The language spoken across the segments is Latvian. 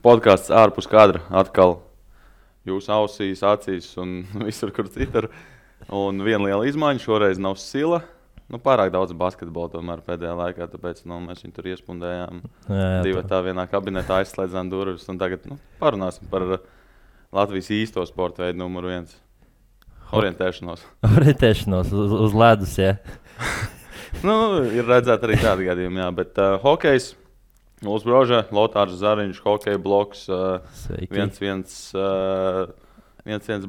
Podkāsts ārpus kadra atkal jūsu ausīs, acīs un visur, kur citur. Un viena liela izmaiņa šoreiz nav Sila. Pārāk daudz basketbola tomēr pēdējā laikā, tāpēc mēs viņu tur iespundējām. Divi tā vienā kabinetā aizslēdzām durvis. Un tagad parunāsim par Latvijas īsto sporta veidu numuru 1. Orientēšanos. Orientēšanos uz ledus, jā. Ir redzēt arī tādi gadījumi, jā. Bet hokejs, Uls Broža, Lotārs Zariņš, hokeja bloks, viens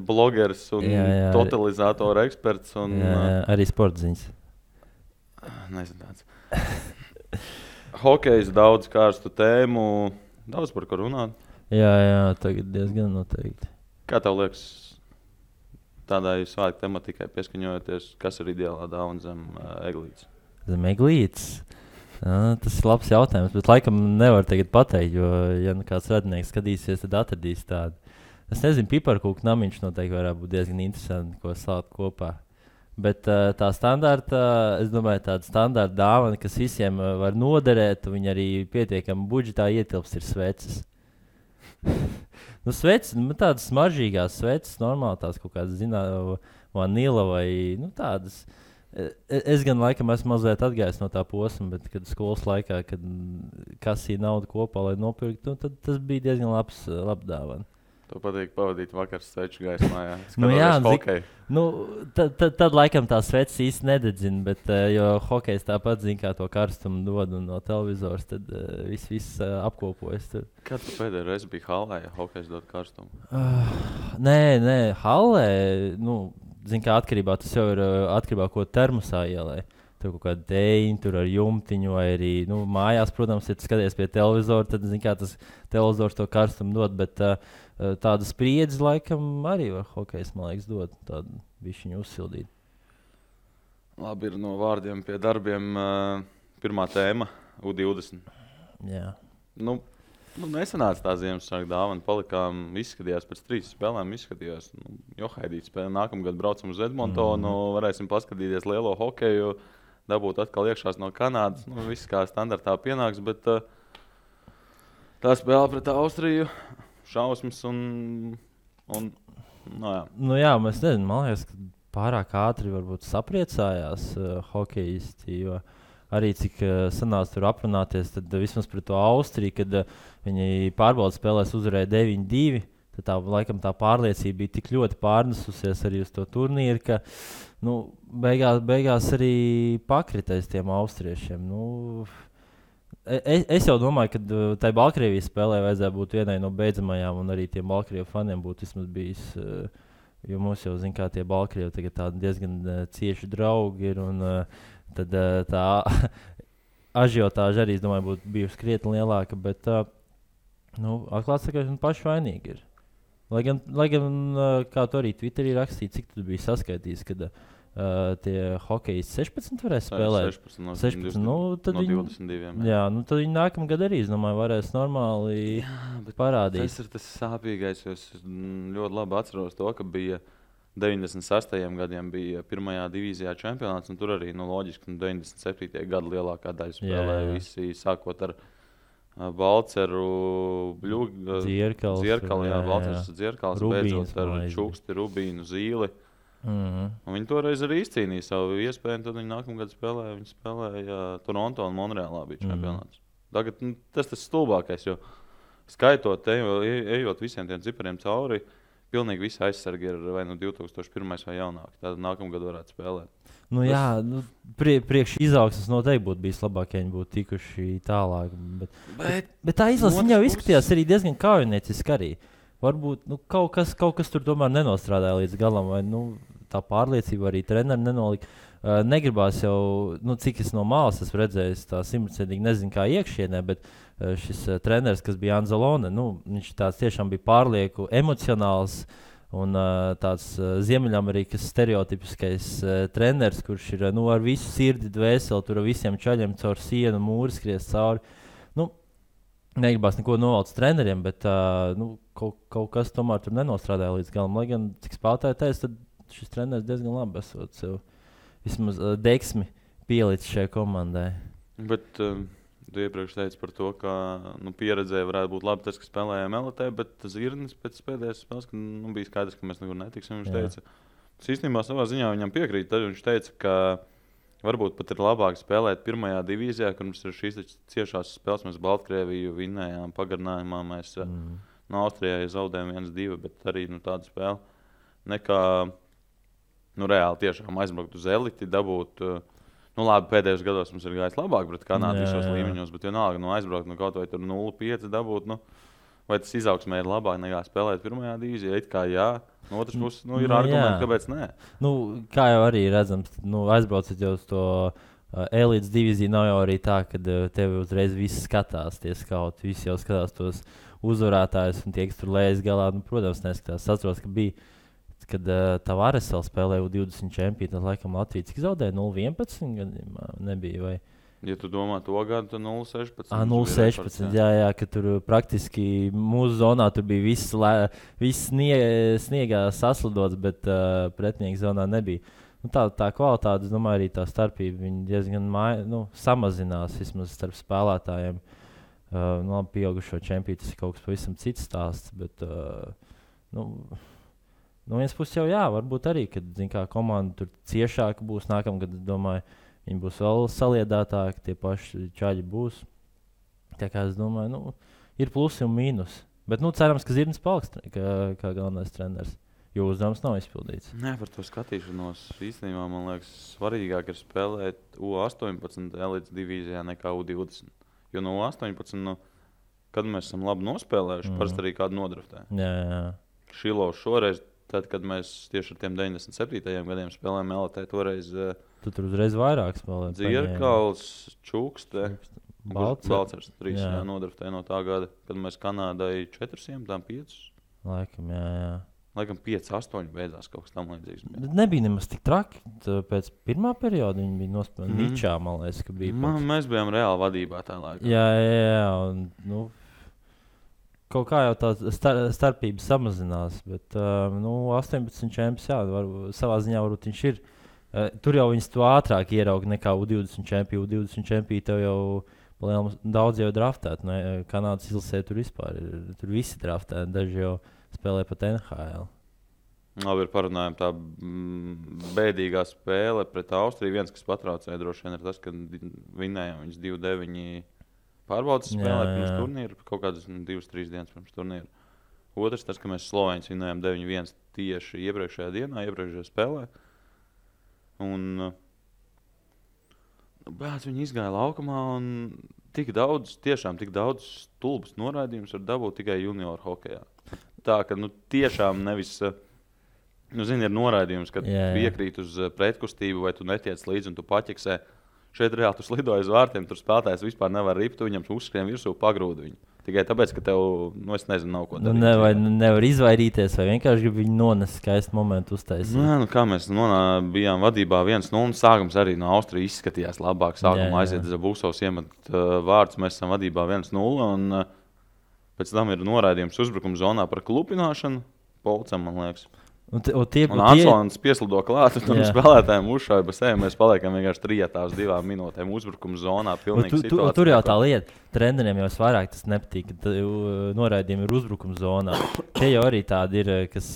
blogers un totalizatora eksperts. Un, arī sportziņas. Nezinu tāds. Hokejs daudz karstu tēmu, daudz par ko runāt. Jā, tagad diezgan noteikti. Kā tev liekas, tādai svētku tematikai pieskaņojoties, kas ir ideālā dāvana zem eglītes? Zem eglītes? Tas ir labs jautājums, bet laikam nevar tagad pateikt, jo, ja kāds radinieks skatīsies, tad atradīs tādu. Es nezinu, piparkūku namiņš noteikti varētu būt diezgan interesanti, ko slāpt kopā. Bet tā standarta, es domāju, tāda standarta dāvana, kas visiem var noderēt, un viņi arī pietiekami budžetā ietilps, ir sveces. Sveces, tādas smaržīgās sveces, normāli tās kaut kādas, vanila vai tādas. Es gan laikam esmu mazliet atgājis no tā posma, bet kad skolas laikā, kad kasīja naudu kopā, lai nopirktu, tad tas bija diezgan labs dāvana. Tev patīk pavadīt vakars sveču gaismā, jā? Tad laikam tā sveces īsti nededzina, bet jo hokejs tāpat zina, kā to karstumu dod un no televizors, tad viss apkopojas tur. Kad tu pēdējo reizi biji hallē, ja hokejs dod karstumu? Nē, hallē, zin kā atkarībā, tas jau ir atkarībā, ko termosā ielē. Tur kaut kāda dēļa, tur ar jumtiņu vai arī mājās, protams, ja tu skaties pie televizora, tad zin kā tas televizors to karstumu dod, bet tāda spriedzi laikam arī var hokejs, man liekas, dot tādu bišķiņu uzsildīt. Labi, ir no vārdiem pie darbiem pirmā tēma, U20. Jā. Nesanāca tā Ziemassvētku dāvana, palikām, izskatījās pēc 3 spēlēm, Johaidīts spēlē, nākamgad braucam uz Edmontonu, varēsim paskatīties lielo hokeju, dabūt atkal iekšās no Kanādas, viss kā standartā pienāks, bet tā spēle pret Austriju, šausmas un jā, mēs nezinu, man liekas, ka pārāk ātri varbūt sapriecājās hokejisti, jo arī cik sanāca tur aprunāties, tad vismaz pret to Austriju, kad viņi pārbaudas spēlēs uzvarēja 9-2, tad laikam tā pārliecība bija tik ļoti pārnesusies arī uz to turnīru, ka beigās arī pakritēs tiem austriešiem. Es jau domāju, ka tai Baltkrievijas spēlē vajadzēja būt vienai no beidzamajām, un arī tiem Baltkrievu faniem būtu vismaz bijis, jo mums jau zin kā tie Baltkrievi tagad tādi diezgan cieši draugi ir, un tad tā ažiotāža arī, es domāju, būtu bijusi krietni lielāka, bet atklāt sakot, paši vainīgi ir. Lai gan kā tu arī Twitterī rakstīji, cik tu biji saskaitījis, kad tie hokejisti 16 varēs spēlēt? 16 no 22. Jā, tad viņi nākamgad arī, es domāju, varēs normāli parādīt. Tas ir tas sāpīgais, jo es ļoti labi atceros to, ka bija 96. gadiem bija pirmajā divīzijā čempionāts, un tur arī, loģiski, 97. gada lielākā daļa spēlēja visi, sākot ar Balceru, Dzierkalu, Balcers Dzierkals, beidzot ar Čuksti, Rubīnu, Zīli. Un viņi toreiz arī izcīnīja savu iespēju, un tad viņi nākamgad spēlēja Toronto un Monreālā bija čempionāts. Tagad tas stulbākais, jo skaitot, ejot visiem tiem cipariem cauri, pilnīgi visi aizsargi ir vai 2001. vai jaunāki. Tātad nākamgad varētu spēlēt. Priekš izaugsmes noteikti būtu bijis labāk, ja viņi būtu tikuši tālāk. Bet tā izlase jau izskatījās arī diezgan kaujinieciski arī. Varbūt kaut kas tur tomēr nenostrādāja līdz galam, vai tā pārliecība arī treneri nenolika. Negribās jau, cik es no malas esmu redzējis, tā 100% nezinu kā iekšienē, bet šis treneris, kas bija Anzalone, viņš tāds tiešām bija pārlieku emocionāls un tāds Ziemeļamerikas stereotipiskais treneris, kurš ir ar visu sirdi dvēseli, tur ar visiem čaļiem caur sienu, mūri skries cauri. Negribās neko novalc treneriem, bet kaut kas tomēr tur nenostrādāja līdz galam. Lai gan, cik spēlētāji teica, tad šis treneris diezgan labi esot sev vismaz deksmi pielicis šajā komandai. Bet Tu iepriekš teici par to, ka pieredzēja varētu būt labi tas, ka spēlējām LT, bet Zirnis pēc pēdējās spēles, ka bija skaidrs, ka mēs nekur netiksim. Viņš teica, tas īstenībā savā ziņā viņam piekrīt. Tad viņš teica, ka varbūt pat ir labāk spēlēt pirmajā divīzijā, kur mums ir šīs ciešās spēles. Mēs Baltkrieviju vinnējām pagarinājumā, mēs no Austrijai zaudējām 1-2, bet arī tāda spēle nekā reāli tiešām aizbraukt uz eliti, dabūt. Labi, pēdējos gados mums ir gājis labāk pret Kanādu visos līmeņos, bet vienalga aizbraukt kaut vai tur 0,5 dabūt. Vai tas izaugsmē ir labāk nekā spēlēt pirmajā divīzijā? It kā jā, no otras puses ir argumenti, kāpēc nē. Kā jau arī redzams, aizbraucat jau uz to elites divīziju, nav jau arī tā, ka tevi uzreiz viss skatās, tie skauti, visi jau skatās tos uzvarētājus un tie, kas tur lējas galā, protams, neskatās. Atceros, ka bija kad Tavares vēl spēlēja U20 čempionu, tad laikam Latvijas cik zaudēja 0-11 gadījumā nebija, vai? Ja tu domā to gadu, tad 0-16. 0-16, jā, ka tur praktiski mūsu zonā tur bija viss sniegā saslidots, bet pretinieku zonā nebija. Tā kvalitāte, es domāju, arī tā starpība, viņi diezgan samazinās vismaz starp spēlētājiem. Labi, pieaugušo čempionu, tas ir kaut kas pavisam cits stāsts, bet, no vienas puses jau varbūt arī, kad komanda tur ciešāka būs nākamgad, domāju, viņi būs vēl saliedētāki, tie paši čaļi būs. Tā kā es domāju, ir plusi un mīnus. Bet cerams, ka Zirnis paliks kā galvenais treneris, jo uzdevums nav izpildīts. Nē, par to skatīšanos īstenībā man liekas svarīgāk ir spēlēt U18 elites divīzijā nekā U20. Jo no U18, kad mēs esam labi nospēlējuši, parasti arī kādu nodraftē. Jā. Šilovs šoreiz, tad, kad mēs tieši ar tiem 97. gadiem spēlējām LT, toreiz tu tur uzreiz vairāk spēlēji. Dzirkals, Čukste, Balcers 3 nodraftēja no tā gada, kad mēs Kanādai 405. Laikam, jā. Laikam 5-8 beidzās kaut kas tam līdzīgs. Nebija nemaz tik traki. Pēc pirmā perioda viņi bija nospēlēti Ničā, man liekas, ka bija. Mēs bijām reāli vadībā tā laikā. Jā, un, kaut kā jau tā starpība samazinās, bet 18 čempions, savā ziņā varbūt viņš ir. Tur jau viņas to ātrāk ierauga nekā U20 čempionu. U20 čempionu tev jau daudz jau draftēt. Kanādas izlasē tur vispār ir. Tur visi draftēti, daži jau spēlē pat NHL. Labi, parunājam tā bēdīgā spēle pret Austriju. Viens, kas patraucēja droši vien ir tas, ka vinnējām viņas 2-9 pārbaudas spēlē pirms turnīra, kaut kādas 2-3 dienas pirms turnīra. Otrs, tas, ka mēs Slovēņus vinnējām 9-1 tieši iepriekšējā dienā, iepriekšējā spēlē. Un viņi izgāja laukumā un tik daudz stulbas noraidījumus var dabūt tikai junioru hokejā. Tā, ka tiešām nevis, ir noraidījums, kad piekrīt uz pretkustību vai tu netiec līdzi un tu paķeksē. Šeit reāli tu slidoji uz vārtiem, tur spēlētājs vispār nevar ript, viņam uzskrien virsū pagrūdu viņu. Tikai tāpēc, ka tev, es nezinu, nav ko darīt. Nevar izvairīties, vai vienkārši grib viņu nonest skaistu momentu uztaisīt. Kā mēs bijām vadībā 1-0, sākums arī no Austrijas izskatījās labāk. Sākumā aiziet Zabūsovs iemet vārdus, mēs esam vadībā 1-0, un pēc tam ir noraidījums uzbrukuma zonā par klupināšanu, Polcam, man liekas. Un Ansons pieslido klāt, un spēlētājiem uzšauja pa sevi. Mēs paliekam vienkārši trijatā uz 2 minūtēm uzbrukuma zonā. Tur jau tā lieta. Treneriem jau vairāk tas nepatīk, ka noraidījumi ir uzbrukuma zonā. Tie jau arī tādi ir, kas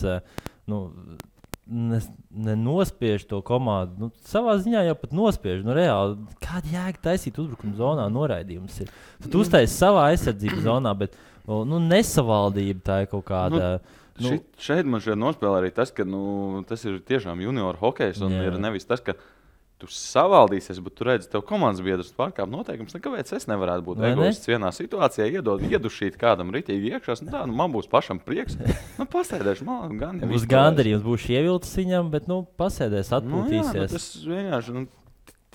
nenospiež to komandu. Savā ziņā jau pat nospiež. Reāli, kāda jēga taisīt uzbrukuma zonā noraidījumus ir? Tu uztaisi savā aizsardzības zonā, bet nesavaldība tā ir kaut kāda... Šeit man nospēlē arī tas, ka tas ir tiešām junioru hokejs. Un ir nevis tas, ka tu savaldīsies, bet tu redzi, tev komandas biedrs pārkāp noteikums. Kāpēc es nevarētu būt egoists vienā situācijā, iedušīt kādam ritīgi iekšā? Man būs pašam prieks. Pasēdēšu, man gan. Būs gandarījums, būs ievilcis viņam, bet pasēdēs, atpūtīsies. Tas vienkārši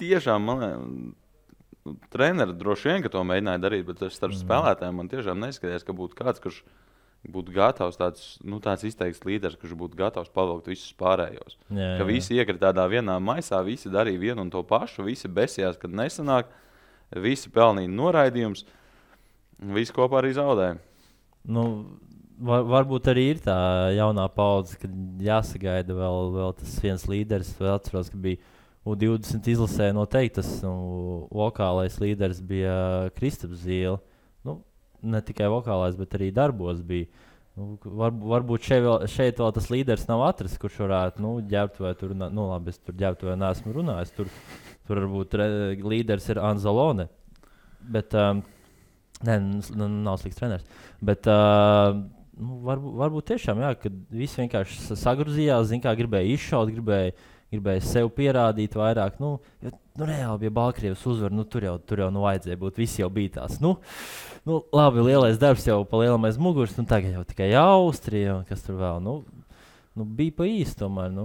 tiešām treneri droši vien, ka to mēģināja darīt, bet starp spēlētājiem man tiešām neizskatījās, ka būtu kāds, kurš būtu gatavs tāds izteikts līderis, kurš būtu gatavs pavilkt visus pārējos. Ka visi iekrita tādā vienā maisā, visi darīja vienu un to pašu, visi besījās, kad nesanāk, visi pelnīja noraidījums, visi kopā arī zaudēja. Varbūt arī ir tā jaunā paudze, kad jāsagaida vēl tas viens līderis. Vēl atceros, ka bija U20 izlasē noteikti tas vokālais līderis bija Kristaps Zīle. Nu, ne tikai vokālais, bet arī darbos bija. Nu, varbūt šeit vēl tas līderis nav atrasts, kurš varētu ģērbtuvē tur, labi, es tur ģērbtuvē neesmu runājis. Tur varbūt līderis ir Anzalone. Bet, nav slikts treneris. Bet varbūt tiešām, jā, kad visi vienkārši sagruzījās, gribēja izšaut, gribēja sev pierādīt vairāk. Reāli, ja Baltkrievs uzvar, tur jau vajadzēja būt. Visi jau bija tās. Labi, lielais darbs jau pa lielam aiz muguras. Tagad jau tikai Austrija un kas tur vēl. Bija pa īsti tomēr.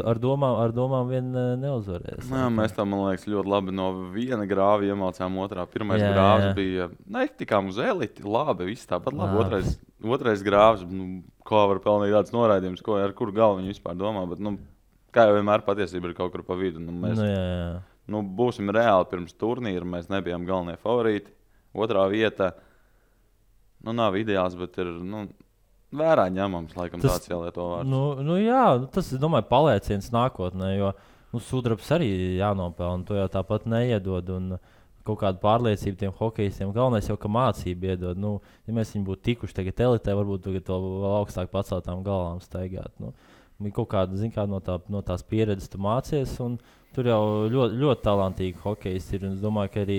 Ar domām vien neuzvarēs. Mēs tam, man liekas, ļoti labi no viena grāva iemācām otrā. Pirmais grāvs bija, tikām uz eliti, labi, viss tāpat labi. Otrais grāvs, kā var pelnīt tāds noraidījums, ar kuru galvu viņi vispār domā. Bet, kā jau vienmēr patiesība ir kaut kur pa vidu. Mēs būsim reāli pirms turnīra, mēs nebijām galvenie favorīti. Otrā vieta, nav ideāls, bet ir, vērā ņemams, laikam tāds jālieto vārds. Jā, tas, es domāju, palieciens nākotnē, jo sudrabs arī jānopelna, to jau tāpat neiedod, un kaut kādu pārliecību tiem hokejistiem. Galvenais jau, ka mācību iedod. Ja mēs viņu būtu tikuši tagad elitē, varbūt tagad vēl augstāk paceltām galvām staigāt. Kaut kāda, no tās pieredzes tu mācies, un tur jau ļoti, ļoti talantīgi hokejisti ir. Es domāju, ka arī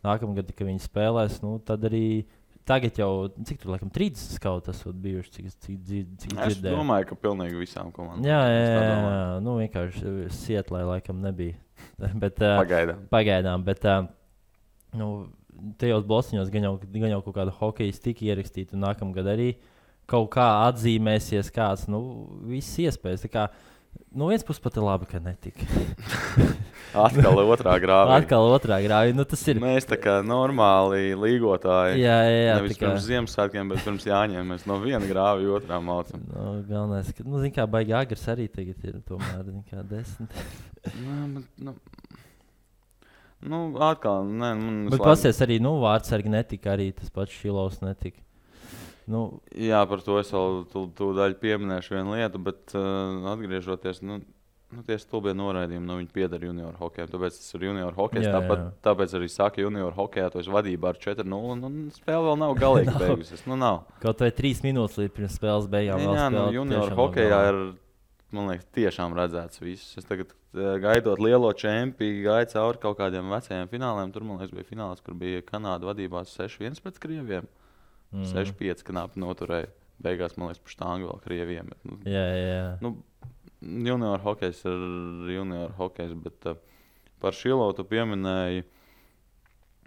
nākamgad, kad viņi spēlēs, tad arī tagad jau, cik tur, laikam, 30 skauti esot bijuši, cik dzirdēju. Es domāju, ka pilnīgi visām komandām. Jā, vienkārši Sietlē laikam nebija. Bet, Pagaidām, bet tajos blociņos gan jau kaut kāda hokejas tika ierakstīta, un nākamgad arī kaut kā atzīmēsies kāds, viss iespējas. Tā kā, viens puses pat ir labi, ka netika. Atkal otrā grāvī. Tas ir. Mēs tā kā normāli līgotāji. Jā. Nevis pirms Ziemassvētkiem, bet pirms Jāņiem mēs no viena grāvi otrā mācam. Galvenais, ka, baigi agrs arī tagad ir tomēr, 10. Atkal, nē. Bet pasies arī, vārdsargi netika, arī tas pats Šilovs netika. Jā, par to es vēl tūdaļ pieminēšu vienu lietu, bet atgriežoties, tie stulbie noraidījumi, viņi pieder junioru hokejam, tāpēc tas ir junioru hokejs, tāpēc arī saka junioru hokejā, to es vadībā ar 4-0, un spēle vēl nav galīgi beigusies, nav. Kaut vai 3 minūtes līdz pirms spēles beigām vēl spēlēt. Jā, junioru hokejā ir, man liekas, tiešām redzēts viss. Es tagad gaidot lielo čempionu, gaidu cauri kaut kādiem vecajiem fināliem, tur, man liekas, bija fināls, kur bija Kanāda vadībās 6-1 pret Krieviem. 6-5 knapi noturēja. Beigās, man liekas, pa štāngu vēl Krieviem. Jā. Junior hokejs ir junior hokejs, bet par Šilovu tu pieminēji.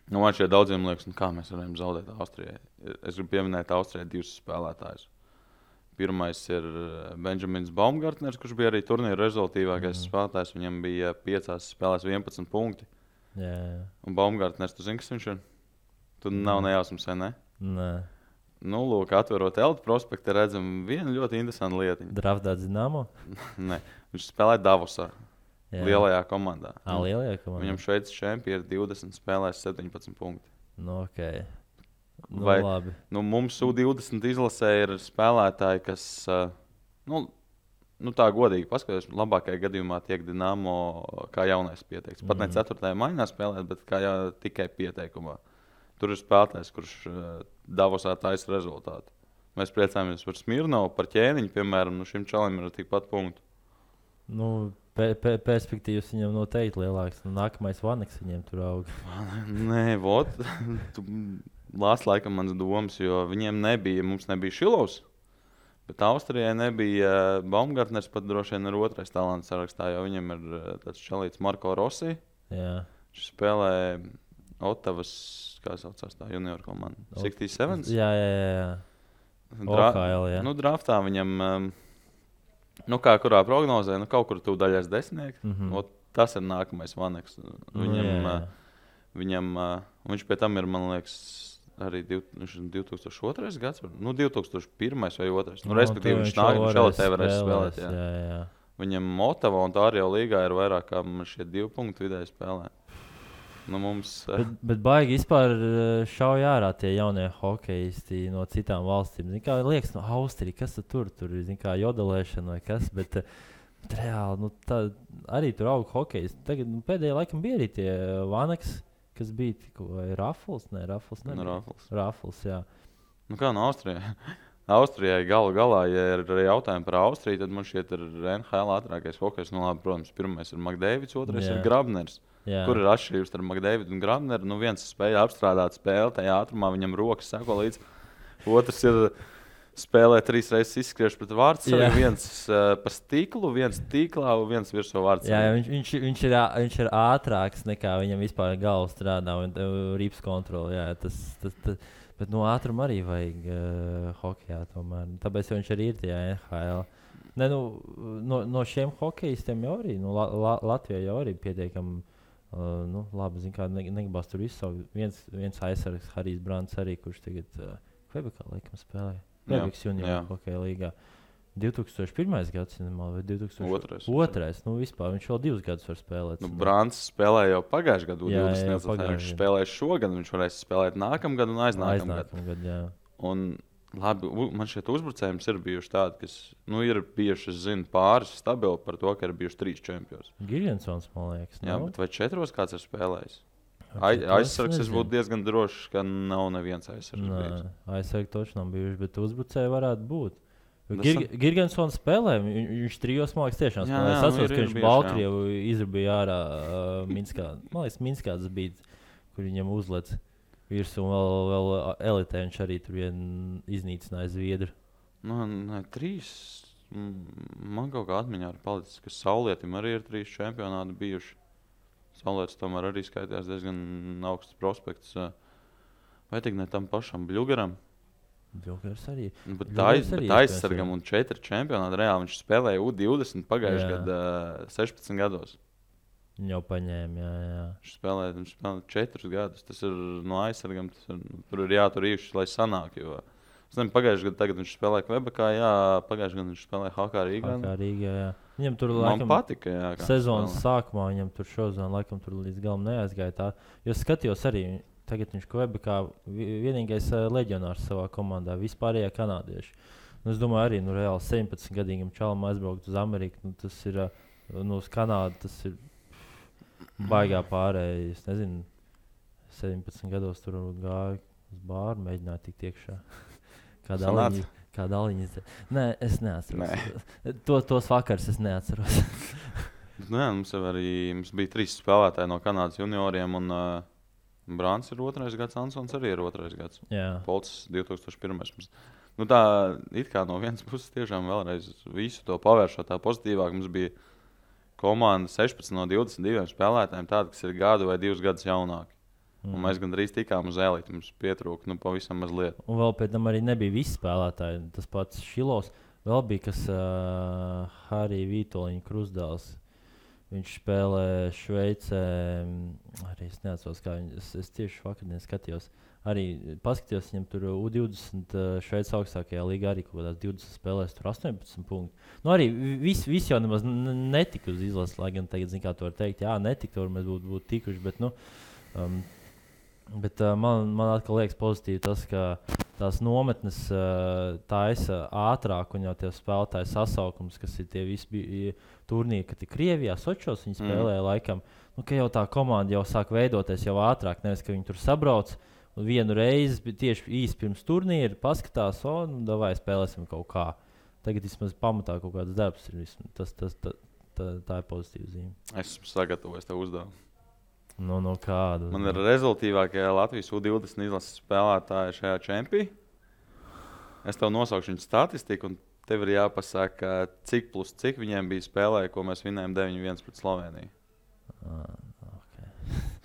Man šeit daudziem liekas, kā mēs varam zaudēt Austrijai. Es gribu pieminēt Austrijai 2 spēlētājus. Pirmais ir Benjamins Baumgartners, kurš bija arī turnīra rezultātīvākais spēlētājs. Viņam bija 5 spēlēs 11 punkti. Jā. Un Baumgartners, tu zini, kas viņš ir? Tu nav nejausmas, vai ne? Nē. Lūk, atverot Elta prospektu, redzam vienu ļoti interesantu lietiņu. Draftā Dinamo? Nē, viņš spēlē Davosā, lielajā komandā. Lielajā komandā? Viņam Šveices čempioni ir 20 spēlēs 17 punkti. Okay. Labi. Mums U20 izlasē ir spēlētāji, kas, tā godīgi paskatās, labākajā gadījumā tiek Dinamo kā jaunais pieteikts. Pat ne 4. maiņā spēlēt, bet kā tikai pieteikumā. Tur ir spēlētājs, kurš Davosā taisa rezultātu. Mēs priecājamies par Smirnovu, par Ķēniņu, piemēram. Šim čalim ir tikpat punktu. Perspektīvas viņam noteikti lielāks. Nākamais Vaneks viņiem tur aug. Nē, lās laikam mans domas, jo mums nebija Šilovs. Bet Austrijai nebija Baumgartners, pat droši vien ir otrais talants sarakstā, jo viņam ir tāds čalīts Marko Rossi. Jā. Viņš spēlē Otavas, kā saucās tā junior komanda? 67? Jā. OHL, jā. Draftā viņam, kā kurā prognozē, kaut kur tu daļais 10. Tas ir nākamais Vaneks. Viņš pie tam ir, man liekas, arī 2002. gads, 2001. vai 2. Respektīvi, viņš šeit varēs spēlēt. Jā. Viņam Otava un tā arī jau līgā ir vairāk kā šie 2 punktu vidēji spēlē. Bet baigi vispār šauj ārā tie jaunie hokejisti no citām valstīm. Liekas, no Austrija, kas tur ir, jodelēšana vai kas, bet Bet reāli, arī tur auga hokejs. Tagad pēdējā laikam bija arī tie Vanaks, kas bija vai Rafals? Nē, Rafals nebija. Rafals, jā. Nu kā no Austrijai? Austrijai galā, ja ir jautājumi par Austriju, tad man šķiet ir NHL ātrākais hokejs. Nu labi, protams, pirmais ir Makdēvids, otrais ir Grabners. Jā. Kur ir atšķirības starp Makdēvidu un Grabneru? Nu viens spēja apstrādāt spēli, tajā ātrumā viņam rokas seko līdz. Otrs ir spēlē 3 reizes izskriešu pret vārdsargu, viens pa stiklu, viens tīklā un viens virsū vārdsargu. Jā, viņš ir ātrāks nekā viņam vispār galva strādā un rips kontroli. Jā, bet no ātruma arī vajag hokejā tomēr. Tāpēc viņš arī ir tajā NHL. Ne, no šiem hokejistiem jau arī, Latvijā jau arī pietiekami labi, zin kā, negribas tur izsaukt. Viens aizsargs, Harijs Brants arī, kurš tagad Kvebekā laikam spēlē. Kvebekas junior hokeja līgā. 2001. gads, vai 2002. Vispār viņš vēl 2 gadus var spēlēt. Brants spēlēja jau pagājušajā gadā, 20. Viņš spēlēja šogad, viņš varēs spēlēt nākamgad un aiznākamgad. Un labi, man šeit uzbrucējums ir bijuši tādi, kas ir bijuši, es zinu, pāris stabili par to, ka ir bijuši 3 čempioni. Giljensons, man liekas. Jā, bet vai 4 kāds ir spēlējis? Aizsargs es būtu diezgan drošs, ka nav neviens aizsargs. Aizsargs toši nav bijuši, bet uzbrucēji varētu būt. Giljensons spēlē, viņš 3 mākslinieks tiešām spēlē. Es atceros, ka viņš Baltkrievu izrabīja ārā Minskā. Man liekas, Minskā tas bija, kur viņam uzlec virsū un vēl elitē viņš arī tur iznīcināja Zviedru. 3. Man kaut kā atmiņā ir palicis, ka Saulietim arī ir 3 čempionāti bijuši. Saulietis tomēr arī skaitījās diezgan augsts prospekts. Vai tik ne tam pašam Bļugaram? Bļugars arī. Bet aizsargam un 4 čempionāti reāli viņš spēlēja U20 pagājušajā gadā 16 gados. Viņa jau paņēma, jā. Viņš spēlēja 4 gadus. Tas ir no aizsargam, tur ir jātur īši, lai sanāk. Jo es nezinu, pagājušajā gadā tagad viņš spēlēja Kvebekā, pagājušajā gadā viņš spēlēja HK Rīgā. HK Rīgā, jā. Viņam tur man patika, sezonas sākumā viņam tur šozona laikam tur līdz galam neaizgāja tā. Jo skatījos arī, tagad viņš Kvebekā vienīgais leģionārs savā komandā, vispārējā kanādieši. Es domāju arī, reāli 17-gadīgam čalam aizbraukt uz Ameriku, tas ir, uz Kanādu, tas ir baigā pārējais, es nezinu, 17 gados tur gāja uz bāru, mēģināja tikt iekšā. Kāda aliņa? Nē, es neatceros. Tos vakars es neatceros. Mums bija 3 spēlētāji no Kanādas junioriem, un Brants ir 2. gads, Ansons arī ir 2. gads. Polcis 2001. Tā it kā no vienas puses tiešām vēlreiz visu to pavēršot tā pozitīvāk. Mums bija komanda 16 no 22 spēlētājiem tāda, kas ir gadu vai 2 gadus jaunāki. Un mēs gandrīz tikām uz eliti, mums pietrūka pavisam mazliet. Un vēl pēc tam arī nebija visi spēlētāji. Tas pats Šilovs, vēl bija kas Harija Vītoliņa Krusdāls. Viņš spēlē Šveicē, arī es neatceros, kā es tieši vakardien skatījos. Arī paskatījos, viņam tur U20 Šveicas augstākajā līgā arī kaut kādās 20 spēlēs, tur 18 punkti. Arī viss jau nemaz netika uz izlases, lai gan tagad, kā to var teikt, netika, tur mēs būtu tikuši, bet, Bet man atkal liekas pozitīvi tas, ka tās nometnes taisa ātrāk un jau tie spēlētāji sasaukums, kas ir tie visi turnīri, kad ir Krievijā, Sočos viņi spēlēja laikam, ka jau tā komanda jau sāk veidoties jau ātrāk, nevis, ka viņi tur sabrauc un vienu reizi tieši īsti pirms turnīra paskatās, davai spēlēsim kaut kā. Tagad vismaz pamatā kaut kāds darbs ir, tā ir pozitīva zīme. Es esmu sagatavojis tev uzdevumu. Kādu? Man ir rezultīvākie Latvijas U20 izlases spēlētāji šajā čempī. Es tev nosaukšu viņu statistiku, un tev ir jāpasaka, cik plus cik viņiem bija spēlē, ko mēs vinējām 9-1 pret Sloveniju. Okay.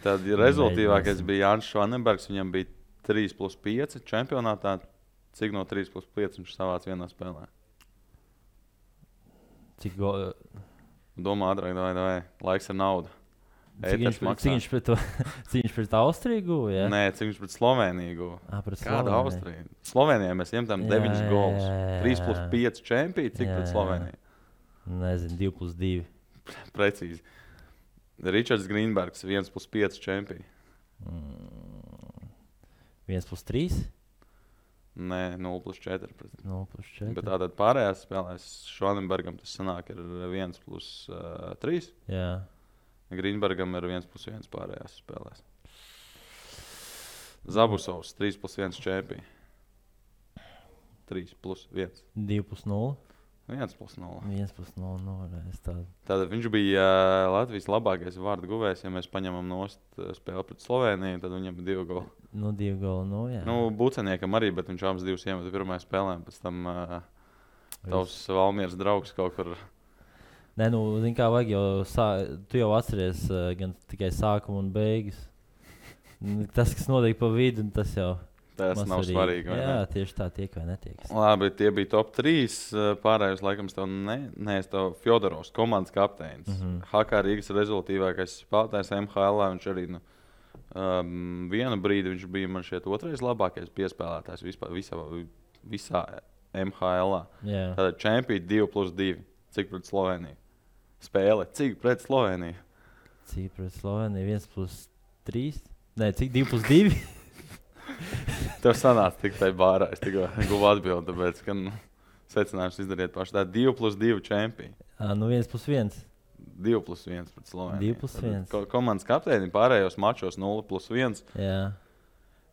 Tad rezultīvākais bija Jānis Švanenbergs, viņam bija 3+5 čempionātā. Cik no 3+5 viņš savāc vienā spēlē? Cik Domā ātrāk, davai. Laiks ir nauda. Cik viņš pret Austriju guva? Ja? Nē, cik viņš pret Sloveniju guva. Kāda Austrija? Slovenijā mēs iemetam 9 gols. 3+5 čempī, cik pret Sloveniju? Nezinu, 2+2. Precīzi. Ričards Grīnbergs 1+5 čempī. 1+3? Nē, 0+4. 0+4. Bet tātad pārējās spēlēs Švanenbergam tas sanāk ir 1+3. Jā. Grīnbergam ir 1+1 pārējās spēlēs. Zabusovs 3+1 čempī. 3+1. 2+0. 1+0. 1+0. Tātad viņš bija Latvijas labākais vārdu guvējs. Ja mēs paņemam nost spēli pret Sloveniju, tad viņam ir 2 goli. 2 goli, jā. Buceniekam arī, bet viņš abas 2 iemeta pirmajā spēlē. Pēc tam tavs Valmieras draugs kaut kur. Nē, zini kā vajag jau, tu jau atceries gan tikai sākumu un beigas. Tas, kas notiek pa vidu, tas jau. Tas nav svarīgi. Jā, tieši tā tiek vai netiek. Labi, tie bija top 3. Pārējos laikam tev tev Fjodorovs, komandas kapteinis. HK Rīgas rezultīvākais spēlētājs MHL. Viņš arī vienu brīdi viņš bija man šeit 2. labākais piespēlētājs visā MHL. Tātad čempioni 2+2. Cik pret Sloveniju? Spēle. Cik pret Sloveniju? Cik pret Sloveniju? 1+3? Nē, cik 2+2? Tev sanāca tik tai bārā. Es tikko guvu atbildi, tāpēc, ka secinājums izdariet paši. Tā 2+2 čempioni. 1+1. 2+1 pret Sloveniju. 2+1. Komandas kapteini pārējos mačos 0+1. Jā.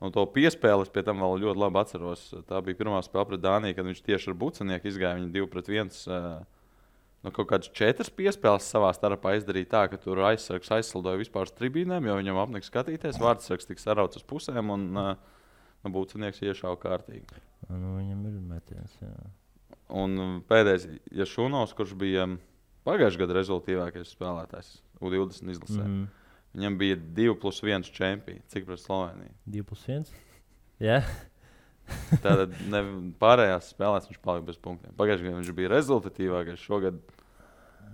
Un to piespēles pie tam vēl ļoti labi atceros. Tā bija pirmā spēle pret Dāniju, kad viņš tieši ar Bucenieku izgāja. Viņi 2-1. Kaut kādas 4 piespēles savā starpā izdarīja tā, ka tur aizsargs aizslidoja vispār uz tribīnēm, jo viņam apnika skatīties. Vārdsargs tika sarauts uz pusēm un Bucenieks iešāva kārtīgi. Viņam ir metiens, jā. Un pēdējais, Jašunovs, kurš bija pagājušajā gada rezultīvākais spēlētājs U20 izlasē. Viņam bija 2+1 čempioni. Cik pret Sloveniju? 2+1? Jā. Tātad pārējās spēlēs viņš palika bez punktiem. Pagājušajā gadā viņš bija rezultatīvākais. Šogad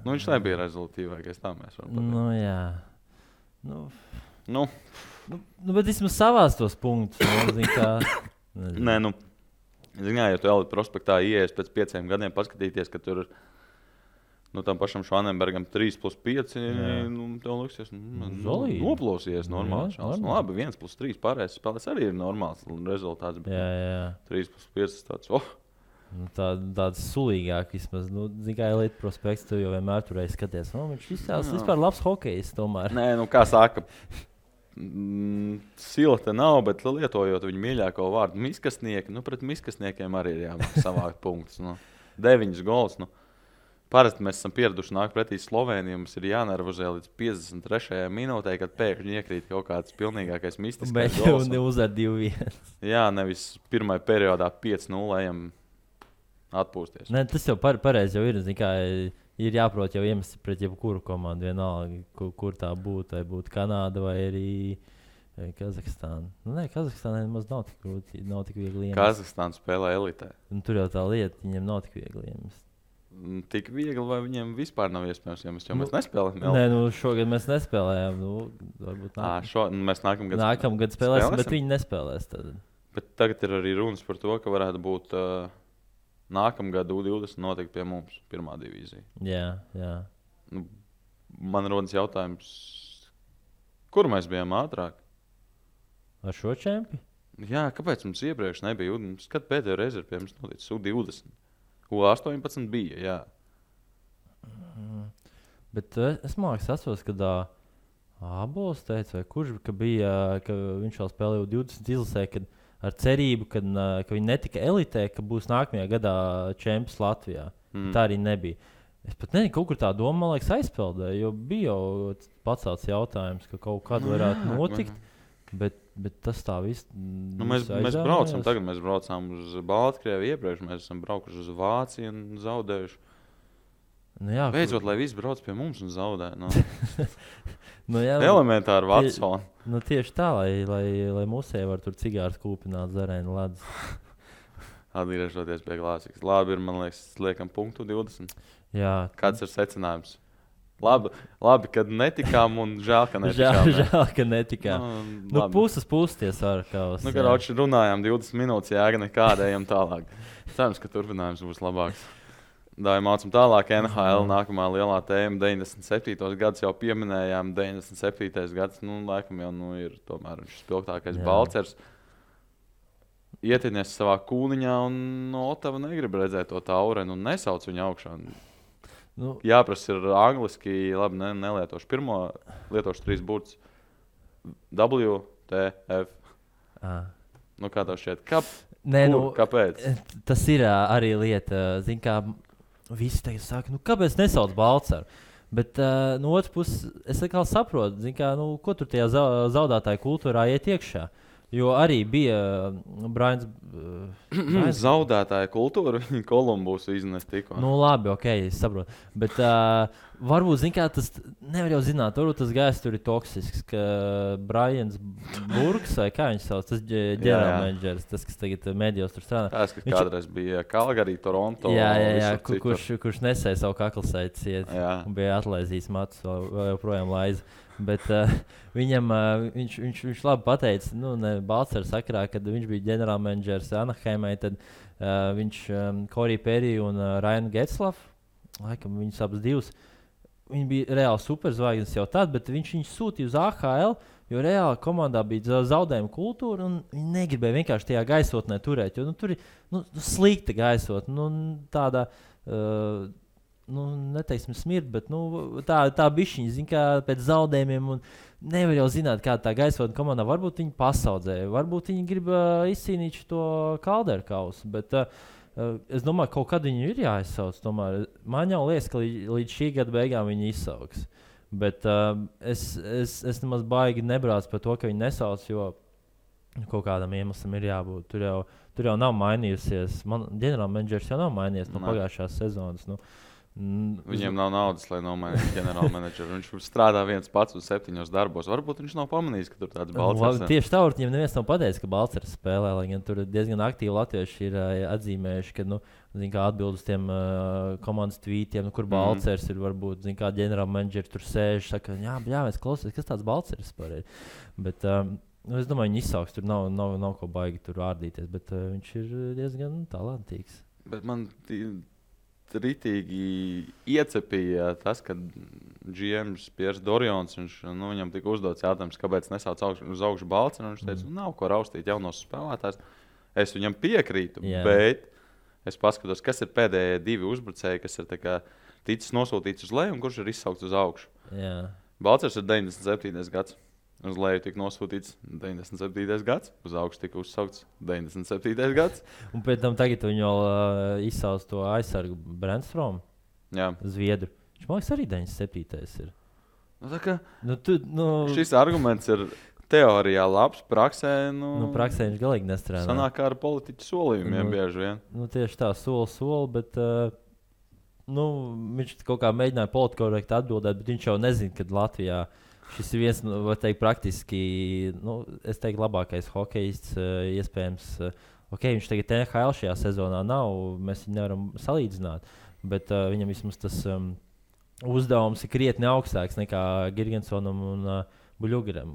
viņš nebija rezultatīvākais. Tā mēs varam pateikt. Jā. Bet vismaz savās tos punktus. Nē, ja tu Elite prospektā ieies pēc 5 gadiem paskatīties, ka tur tam pašam Švanenbergam 3+5, tev liksies, noplosies normāli. Labi, 1+3 pārējais spēlēs arī ir normāls rezultāts. Jā. 3+5 tāds, tāds sulīgāk vismaz. Kā Elite prospekts, tu jau vienmēr turēji skaties. Viņš izstāsta vispār labs hokejs tomēr. Nē, kā saka, sila te nav, bet lietojot viņu mīļāko vārdu miskastnieki, pret miskastniekiem arī ir jāmāk savākt punktus. 9 gols, Parasti mēs esam pieraduši nākt pretī Slovenijai. Mums ir jānervozē līdz 53. minūtē, kad pēkšņi iekrīt kaut kāds pilnīgākais mistiskais gols. Bet uzvar 2-1. Jā, nevis pirmajā periodā 5-0 ejam atpūsties. Ne, tas jau pareizi jau ir. Ir jāprot jau iemest pret jebkuru komandu. Vienalga, kur tā būtu. Vai būtu Kanāda vai arī Kazahstāna. Kazahstānai nemaz nav tik grūti. Nav tik viegli iemest. Kazahstāna spēlē elitē. Tur jau tā lieta, viņiem nav tik viegli iemest. Tik viegli, vai viņiem vispār nav iespējams, jo mēs nespēlējam? Nē, šogad mēs nespēlējām. Varbūt mēs nākamgad spēlēsim, bet viņi nespēlēs. Tad. Bet tagad ir arī runas par to, ka varētu būt nākamgad U20 notikt pie mums pirmā divīzija. Jā. Man rodas jautājums, kur mēs bijām ātrāk? Ar šo čempi? Jā, kāpēc mums iepriekš nebija? Kad pēdējo reizi ir pie mums noticis U20? U18 bija, jā. Bet es atceros, kad Abols teica, vai kurš, ka viņš vēl spēlēja U20 izlasē, kad ar cerību, ka viņi netika elitē, ka būs nākamajā gadā čempions Latvijā. Tā arī nebija. Es pat nezinu, kaut kur tā doma, man liekas, aizpeldēja, jo bija jau pacelts jautājums, ka kaut kad varētu notikt. Bet tas tā viss. Mēs braucām uz Baltkrieviju iepriekš, mēs esam braukuši uz Vāciju un zaudējuši. Beidzot, lai viss brauc pie mums un zaudē. Elementāri Vatsoni. Tieši tā, lai musē var tur cigārs kūpināt zarēnu ledus. Atgriežoties pie klasikas. Labi ir, man liekas, liekam punktu 20. Jā. Kāds ir secinājums? Labi, kad netikām un žēl, ka netikām. Žēl, ka netikām. Puses tie sarkaus. Kad runājām 20 minūtes, jēga nekāda, ejam tālāk. Cerams, ka turpinājums būs labāks. Mācam tālāk NHL nākamā lielā tēma 97. gads jau pieminējām. 97. gads, laikam jau ir tomēr viņš spilgtākais Balcers. ietinies savā kūniņā, un no Otava negrib redzēt to taurenu un nesauc viņu augšā. Jāprasa ir angliski, labi, nelietošu pirmo, lietošu 3 burtus. W, T, F. Kā tev šķiet? Kāpēc? Tas ir arī lieta, zin kā, visi tagad saka, kāpēc nesauc Balcaru? Bet no otras puses, es atkal saprotu, zin kā, ko tur tajā zaudētāju kultūrā iet iekšā. Jo arī bija Brains. Zaudētāja kultūra, viņa Kolumbusu iznest tikko. Labi, ok, es saprotu. Bet varbūt, zin kā, tas nevar jau zināt, varbūt tas gājs tur ir toksisks, ka Brians Burks, vai kā viņš sauc, tas ģenerālmenedžers, tas, kas tagad medijos tur strādā. Tas, kas kādreiz bija Calgary, Toronto. Jā, kurš nesēja savu kaklsaites iet un bija atlaizījis matus, vēl joprojām laiza. Bet viņš labi pateica, ne Balcaru sakarā, kad viņš bija ģenerālmenedžers Anaheimai, tad viņš Corey Perry un Ryan Getzlaff, laikam viņus abas divas, viņi bija reāli superzvaigznes jau tad, bet viņš sūtīja uz AHL, jo reāli komandā bija zaudējuma kultūra, un viņi negribēja vienkārši tajā gaisotnē turēt, jo tur ir slikta gaisotne, tāda... neteiksim smirt, bet tā bišķiņa, zin kā, pēc zaudējumiem, un nevar jau zināt, kāda tā gaisotne komandā. Varbūt viņi pasaudzēja, varbūt viņi grib izcīnīt to Calderu kausu, bet es domāju, kaut kad viņi ir jāizsauc. Tomēr man jau liekas, ka līdz šī gada beigām viņi izsauks. Bet es nemaz baigi nebrācu par to, ka viņi nesauc, jo kaut kādam iemeslam ir jābūt. Tur jau nav mainījusies. Ģenerālmenedžers jau nav mainījies no pagājušās sezonas. Viņiem nav naudas, lai nomainītu ģenerālmenedžeru. Viņš strādā viens pats uz 7 darbos. Varbūt viņš nav pamanījis, ka tur tāds Balcars. Tieši tā, viņam neviens nav pateicis, ka Balcars spēlē, lai gan tur diezgan aktīvi latvieši ir atzīmējuši, ka, kā atbild uz tiem komandas tvītiem, kur Balcars ir, varbūt, kā ģenerālmenedžeri tur sēž, saka, jā, mēs klausies, kas tāds Balcars par ir. Bet, es domāju, viņi izsauks, tur nav ko baigi tur ārdīties, bet viņš ir diezgan talantīgs. Bet man ritīgi iecepīja tas, ka GMs Piers Dorjons, viņam tika uzdots jautājums, kāpēc nesauc uz augšu Balcaru, un viņš teica, nav ko raustīt jaunos spēlētājs. Es viņam piekrītu, bet es paskatos, kas ir pēdējie 2 uzbrucēji, kas ir ticis nosūtīts uz leju un kurš ir izsaukts uz augšu. Jā. Balcars ir 97. gads. Uz leju tika nosūtīts 97. gads, uz augšu tika uzsaukts 97. gads. Un pēc tam tagad viņi vēl izsauc to aizsargu Brännströmu, Zviedru. Viņš man liekas arī 97. ir. Šis arguments ir teorijā labs, praksē. Praksē viņš galīgi nestrādā. Sanāk kā ar politiķu solījumiem bieži vien. Tieši tā, soli, bet viņš kaut kā mēģināja politkorekti atbildēt, bet viņš jau nezina, kad Latvijā šis ir viens, var teikt, praktiski, es teiktu, labākais hokejists, iespējams. Viņš tagad NHL šajā sezonā nav, mēs viņu nevaram salīdzināt, bet viņam vismaz tas uzdevums ir krietni augstāks nekā Girgensonam un Buļugaram.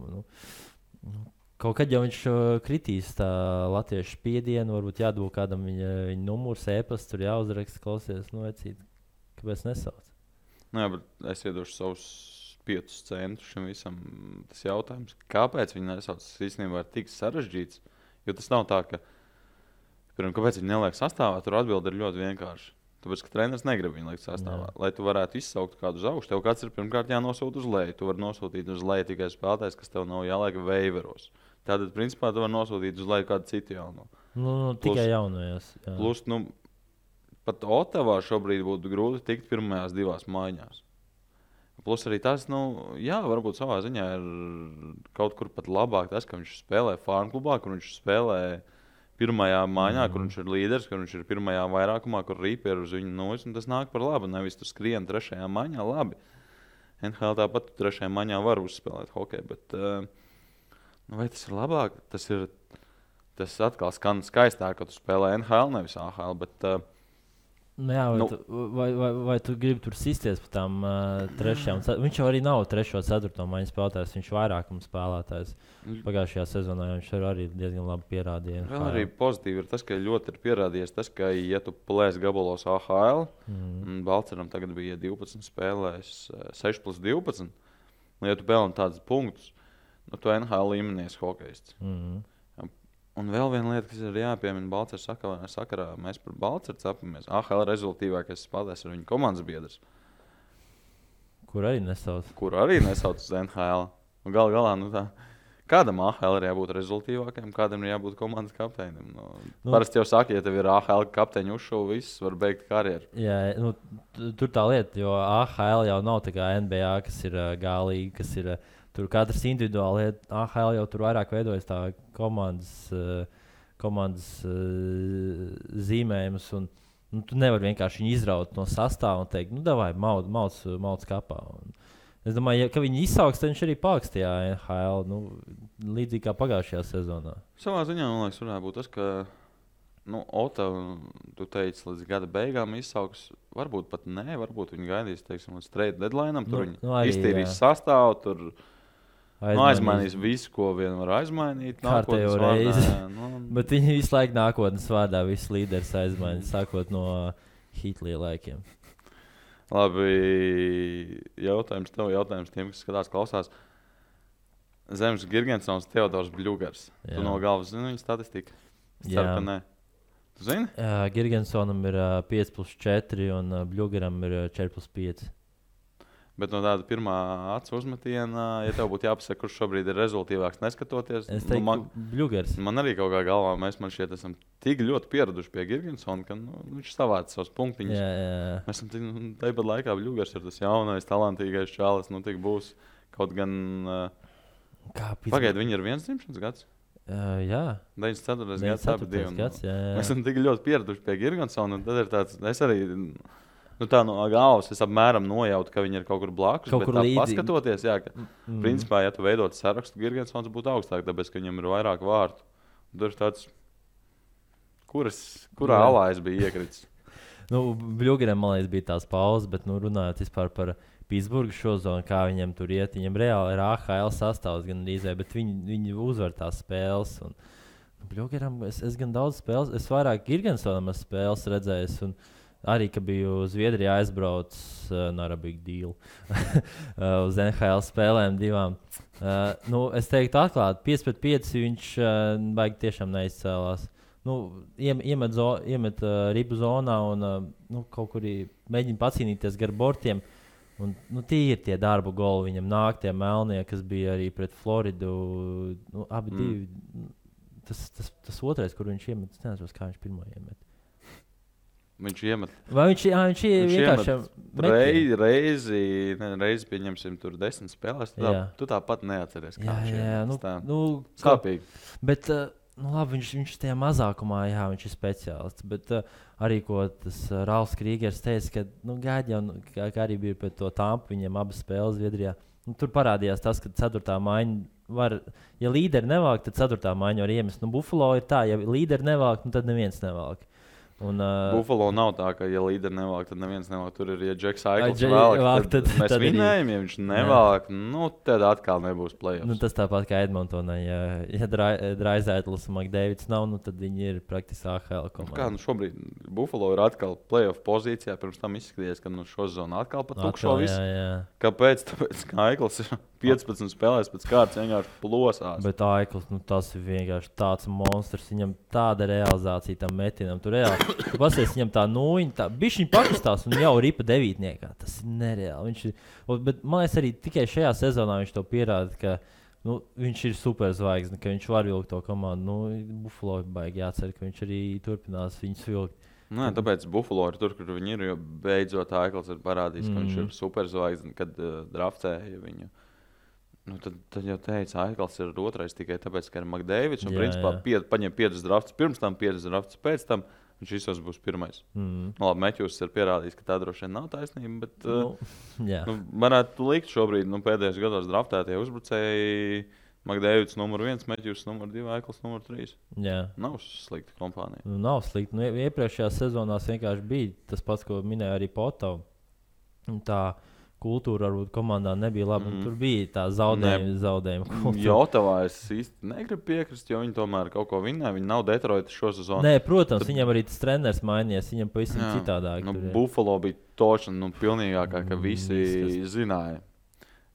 Kaut kad jau viņš kritīs tā latviešu spiedienu, varbūt jādod kādam viņa numurs, e-pasts, tur jāuzraksta, klausies, vecīt, kāpēc nesauc? Jā, bet es iedošu savus 5 centus šim visam. Tas jautājums, kāpēc viņi nesauc, tas īstenībā ir tik sarežģīts, jo tas nav tā, ka, kāpēc viņi neliek sastāvā, tur atbilde ir ļoti vienkārši. Tāpēc, ka treneris negrib viņu likt sastāvā. Lai tu varētu izsaukt kādu uz augšu, tev kāds ir pirmkārt jānosūta uz leju. Tu vari nosūtīt uz leju tikai spēlētājs, kas tev nav jāliek veiveros. Tātad, principā, tu vari nosūtīt uz leju kādu citu jauno. Tikai jaunajās. Plus, pat Otavā šobrīd būtu grūti tikt pirmajās 2 maiņās. Plus arī tas, varbūt savā ziņā ir kaut kur pat labāk tas, ka viņš spēlē farmklubā, kur viņš spēlē pirmajā maiņā, kur viņš ir līderis, kur viņš ir pirmajā vairākumā, kur rīpi ir uz viņu nojas, un tas nāk par labu. Nevis tu skrien 3. maiņā, labi. NHL tāpat 3. maiņā var uzspēlēt hokeju, bet vai tas ir labāk? Tas atkal skan skaistāk, ka tu spēlē NHL, nevis AHL, bet... Vai tu gribi tur sisties par tām 3. Viņš jau arī nav 3. un 4. maiņas spēlētājs, viņš ir vairākuma spēlētājs. Pagājušajā sezonā viņš arī diezgan labi pierādīja. Vēl arī pozitīvi ir tas, ka ļoti ir pierādījies tas, ka, ja tu plēsi gabalos AHL, Balcaram tagad bija 12 spēlēs, 6+12, ja tu pelni tādus punktus, tu NHL līmenies hokejists. Un vēl viena lieta, kas ir jāpiemina Balcers sakarā, mēs par Balceru capamies. AHL rezultīvākais spēlētājs ir viņa komandas biedrs. Kur arī nesauc uz NHL. Un galā, kādam AHL ir jābūt rezultīvākajam, kādam ir jābūt komandas kapteinim. Parasti jau saka, ja tev ir AHL kapteiņu uzšuvu, viss var beigt karjeru. Jā, tur tā lieta, jo AHL jau nav tā kā NBA, kas ir gālīgi, kas ir... Tur katrs individuāli AHL jau tur vairāk veidojas tā komandas zīmējums. Tu nevari vienkārši viņu izraut no sastāva un teikt, davai, mauc kapā. Es domāju, ka viņi izsauks, tad viņš arī paliks tajā NHL, līdzīgi kā pagājušajā sezonā. Savā ziņā, man liekas, varētu būt tas, ka Ota, tu teici, līdz gada beigām izsauks. Varbūt pat nē, varbūt viņi gaidīs, teiksim, līdz trade deadline'am. Tur viņi iztīrīs sastāvu, tur... aizmainīs visu, ko vien var aizmainīt. Kārtējo reizi. Bet viņi visu laiku nākotnes vārdā visus līderus aizmainīs, sākot no Hitlija laikiem. Labi, jautājums tev, jautājums tiem, kas skatās, klausās. Zemes Girgensons, Teodors Bļugars. Tu no galvas zini viņa statistiku? Jā. Ceru, ka nē. Tu zini? Girgensonam ir 5+4 un Bļugaram ir 4+5. Bet no tāda pirmā acu uzmetiena, ja tev būtu jāpasaka, kurš šobrīd ir rezultīvāks neskatoties, es teiktu, Bļugars. Man arī kaut kā galvā, mēs šeit esam tik ļoti pieraduši pie Girgensona, ka viņš savāca savus punktiņus. Jā. Mēs esam tāpat laikā Bļugars ir tas jaunais, talantīgais čalis, tik būs kaut gan... Pagaid, viņi ir viens dzimšanas gads? Jā. 94. gads, abi divi. Mēs esam tik ļoti pieraduši pie Girgensona, un tad ir tāds, es arī... tā no galvas es apmēram nojautu, ka viņi ir kaut kur blakus. Kaut kur līdzīgi. Paskatoties, jā, ka principā, ja tu veidot sarakstu, Girgensons būtu augstāk, tāpēc, ka viņam ir vairāk vārtu. Tur ir tāds, kurā alā es biju iekritis. Bļugaram, man liekas, bija tās pauzes, bet runājot vispār par Pitsburgu šo zonu, kā viņam tur iet. Viņam reāli ir AHL sastāvs gan rīzē, bet viņi uzvar tās spēles. Un Bļugaram es gan daudz spēles, es vairāk Girgensonam spēles redzējis. Un arī, ka biju Zviedrijā aizbraucis, not a big deal, uz NHL spēlēm divām. Es teiktu atklāti, 5-5 viņš baigi tiešām neizcēlās. Iemet ribu zonā un kaut kur mēģina pacīnīties gar bortiem. Un, tie ir tie darba goli, viņam nāk tie melnie, kas bija arī pret Floridu. Abi divi. Tas otrais, kur viņš iemet, es nezinu, kā viņš pirmo iemet. Viņš iemet. Vai viņš vienkārši reizi pieņemsim tur 10 spēlēs, tu tāpat neatceries, kā viņš iemet. Sāpīgi. Bet, labi, viņš tajā mazākumā, jā, viņš ir speciālists, bet arī, ko tas Ralfs Krīgers teica, ka, gaidi jau, kā arī bija pret to Tampu, viņiem abas spēles Zviedrijā, tur parādījās tas, ka 4. maiņa var, ja līderi nevalk, tad 4. maiņa var iemest. Buffalo ir tā, ja līderi nevalk, tad neviens nevalk. Buffalo nav tā, ka, ja līderi nevalk, tad neviens nevalk. Tur ir, ja Džeks Aikls valk, tad mēs vinējam, ja viņš nevalk, tad atkal nebūs play-offs. Tas tāpat kā Edmontonā, ja Draisaitls un McDavids nav, tad viņi ir praktiski AHL komanda. Šobrīd Buffalo ir atkal play-off pozīcijā, pirms tam izskaties, ka šo zonu atkal pat tukšo visu. Kāpēc? Tāpēc, ka Aikls ir 15 spēlēs pēc kārtas vienkārši plosās. Bet Aikls, tas ir vienkārši tāds monstrs, viņam tāda realizācija tam metinam. Tu pasies, viņam tā nūjiņa, bišķiņ pakustās un jau ripa 9. Tas ir nereāli. Bet man liekas arī tikai šajā sezonā viņš to pierāda, ka viņš ir superzvaigzne, ka viņš var vilkt to komandu. Buffalo baigi jācer, ka viņš arī turpinās viņus vilkt. Tāpēc Buffalo ir tur, kur viņi ir, jo beidzot Aikls ir parādījis, ka viņš ir superzvaigzne, kad draftēja viņu. Tad jau teica, Aikls ir otrais tikai tāpēc, ka ir McDavids. Un principā paņem 5 draftus pirms tam, 5 draftus pēc tam. Viņš visos būs pirmais. Labi, Meķus ir pierādījis, ka tā droši vien nav taisnība, bet varētu likt šobrīd pēdējos gados draftētie uzbrucēji McDavids numur 1, Meķus numur 2, Aikls numur 3. Jā. Nav slikta kompānija. Nav slikta. Iepriekšējās sezonās vienkārši bija tas pats, ko minēja arī Potovs. Tā kultūra varbūt komandā nebija laba. Tur bija tā zaudējuma kultūra. Jotavā es īsti negribu piekrist, jo viņi tomēr kaut ko vinnēja. Viņi nav Detroitas šo sezonu. Nē, protams, viņam arī tas treneris mainījies. Viņam pavisam citādāk. Buffalo bija tošana pilnīgākā, ka visi zināja.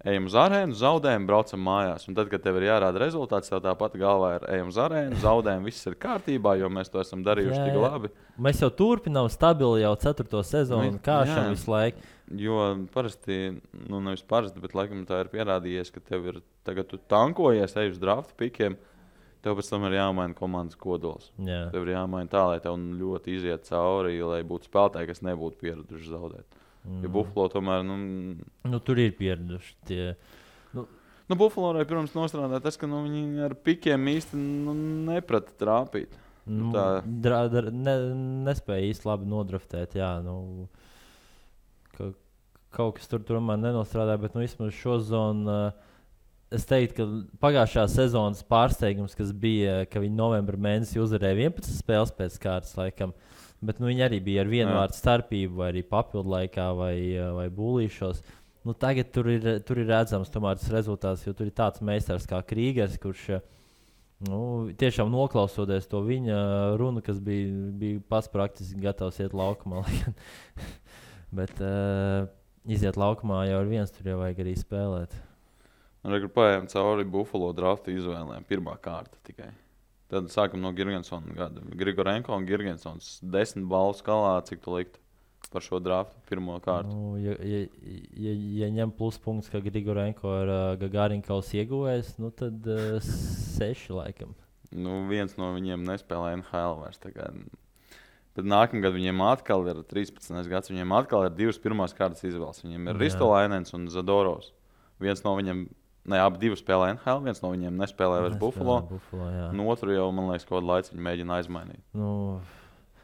ejam uz arēnu, zaudējam, braucam mājās. Un tad, kad tev ir jārāda rezultāts, tev tāpat galvā ir ejam uz arēnu, zaudējam, viss ir kārtībā, jo mēs to esam darījuši tik labi. Mēs jau turpinām stabili jau 4. sezonu, kāšam visu laiku. Jo parasti, nevis parasti, bet laikam tā ir pierādījies, ka tev ir, tagad tu tankojies, ej uz drafta pikiem, tev pēc tam ir jāmaina komandas kodols. Jā. Tev ir jāmaina tā, lai tev ļoti iziet cauri, lai būtu spēlētāji, kas nebūtu pieraduši zaudēt. Ja Buffalo tomēr, tur ir pieraduši tie. Buffalo, protams, nostrādā tas, ka viņi ar pikiem īsti neprata trāpīt. Nespēja īsti labi nodraftēt, jā. Kaut kas tur tomēr nenostrādāja, bet vismaz šo zonu es teiktu, ka pagājušā sezonas pārsteigums, kas bija, ka viņi novembra mēnesī uzvarēja 11 spēles pēc kārtas laikam. Bet viņi arī bija ar vienu vārdu starpību, vai arī papildu laikā, vai būlīšos. Tagad tur ir redzams tomēr tas rezultāts, jo tur ir tāds meistars kā Krīgers, kurš tiešām noklausoties to viņa runu, kas bija pats praktiski gatavs iet laukumā. Bet iziet laukumā jau ar viens, tur jau vajag arī spēlēt. Rekur paējām cauri Buffalo drafta izvēlēm, pirmā kārta tikai. Tad sākam no Girgensona gada. Grigorenko un Girgensons 10 balvu skalā, cik tu liktu par šo draftu pirmo kārtu? Ja ņem pluspunkts, ka Grigorenko ir Gagarinkaus ieguvējs, tad 6 laikam. Viens no viņiem nespēlē NHL vairs. Bet nākamgad viņiem atkal ir 13. gads, viņiem atkal ir 2 pirmās kārtas izvēles. Viņiem ir Ristolainens un Zadorovs. Viens no viņiem abi divi spēlē NHL, viens no viņiem nespēlē vairs Buffalo. Otru jau, man liekas, kaut kādu laiku viņi mēģina aizmainīt. No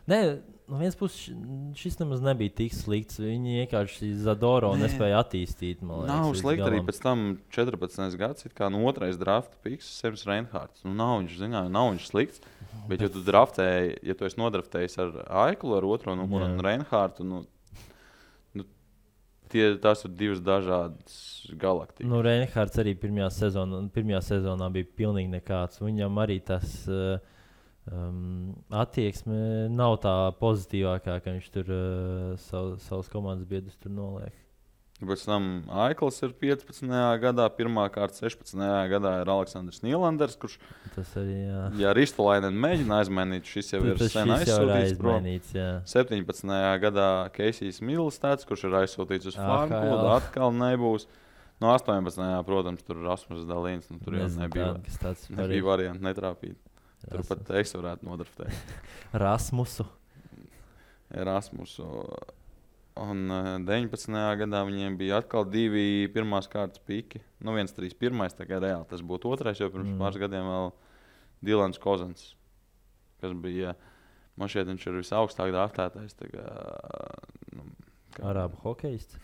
vienas puses šis nemaz nebija tik slikts. Viņi vienkārši Zadoro nespēja attīstīt. Nav slikti arī pēc tam 14. gads, kā otrais drafta piks, Sems Reinhārds. Nav viņš slikts, bet ja tu draftēji, ja tu esi nodraftējis ar Aiklu, ar otro numuru un Reinhārdu, tās ir divas dažādas galaktikas. Reinhārds arī pirmajā sezonā bija pilnīgi nekāds. Viņam arī tas attieksme nav tā pozitīvākā, ka viņš tur savus komandas biedrus tur noliek. Pēc tam Aikls ir 15. gadā, pirmā kārta 16. gadā ir Aleksandrs Nīlanders, kurš tas arī, jā. Ja Ristolainen mēģina aizmainīt, šis jau ir sen aizsūtīts prom. 17. gadā Keisijs Milstāts, kurš ir aizsūtīts uz Frankfurtu, atkal nebūs. No 18. protams, tur Rasmus Dalīns, tur jau nebija varianti netrāpīt. Tur pat es varētu nodraftēt. Rasmusu. Un 19. gadā viņiem bija atkal 2 pirmās kārtas piki. Viens 3-1, tā kā reāli tas būtu otrais, jo pirms pāris gadiem vēl Dilans Kozans, kas bija, man šeit viņš ir visaugstāk draftētais. Arābu hokejists?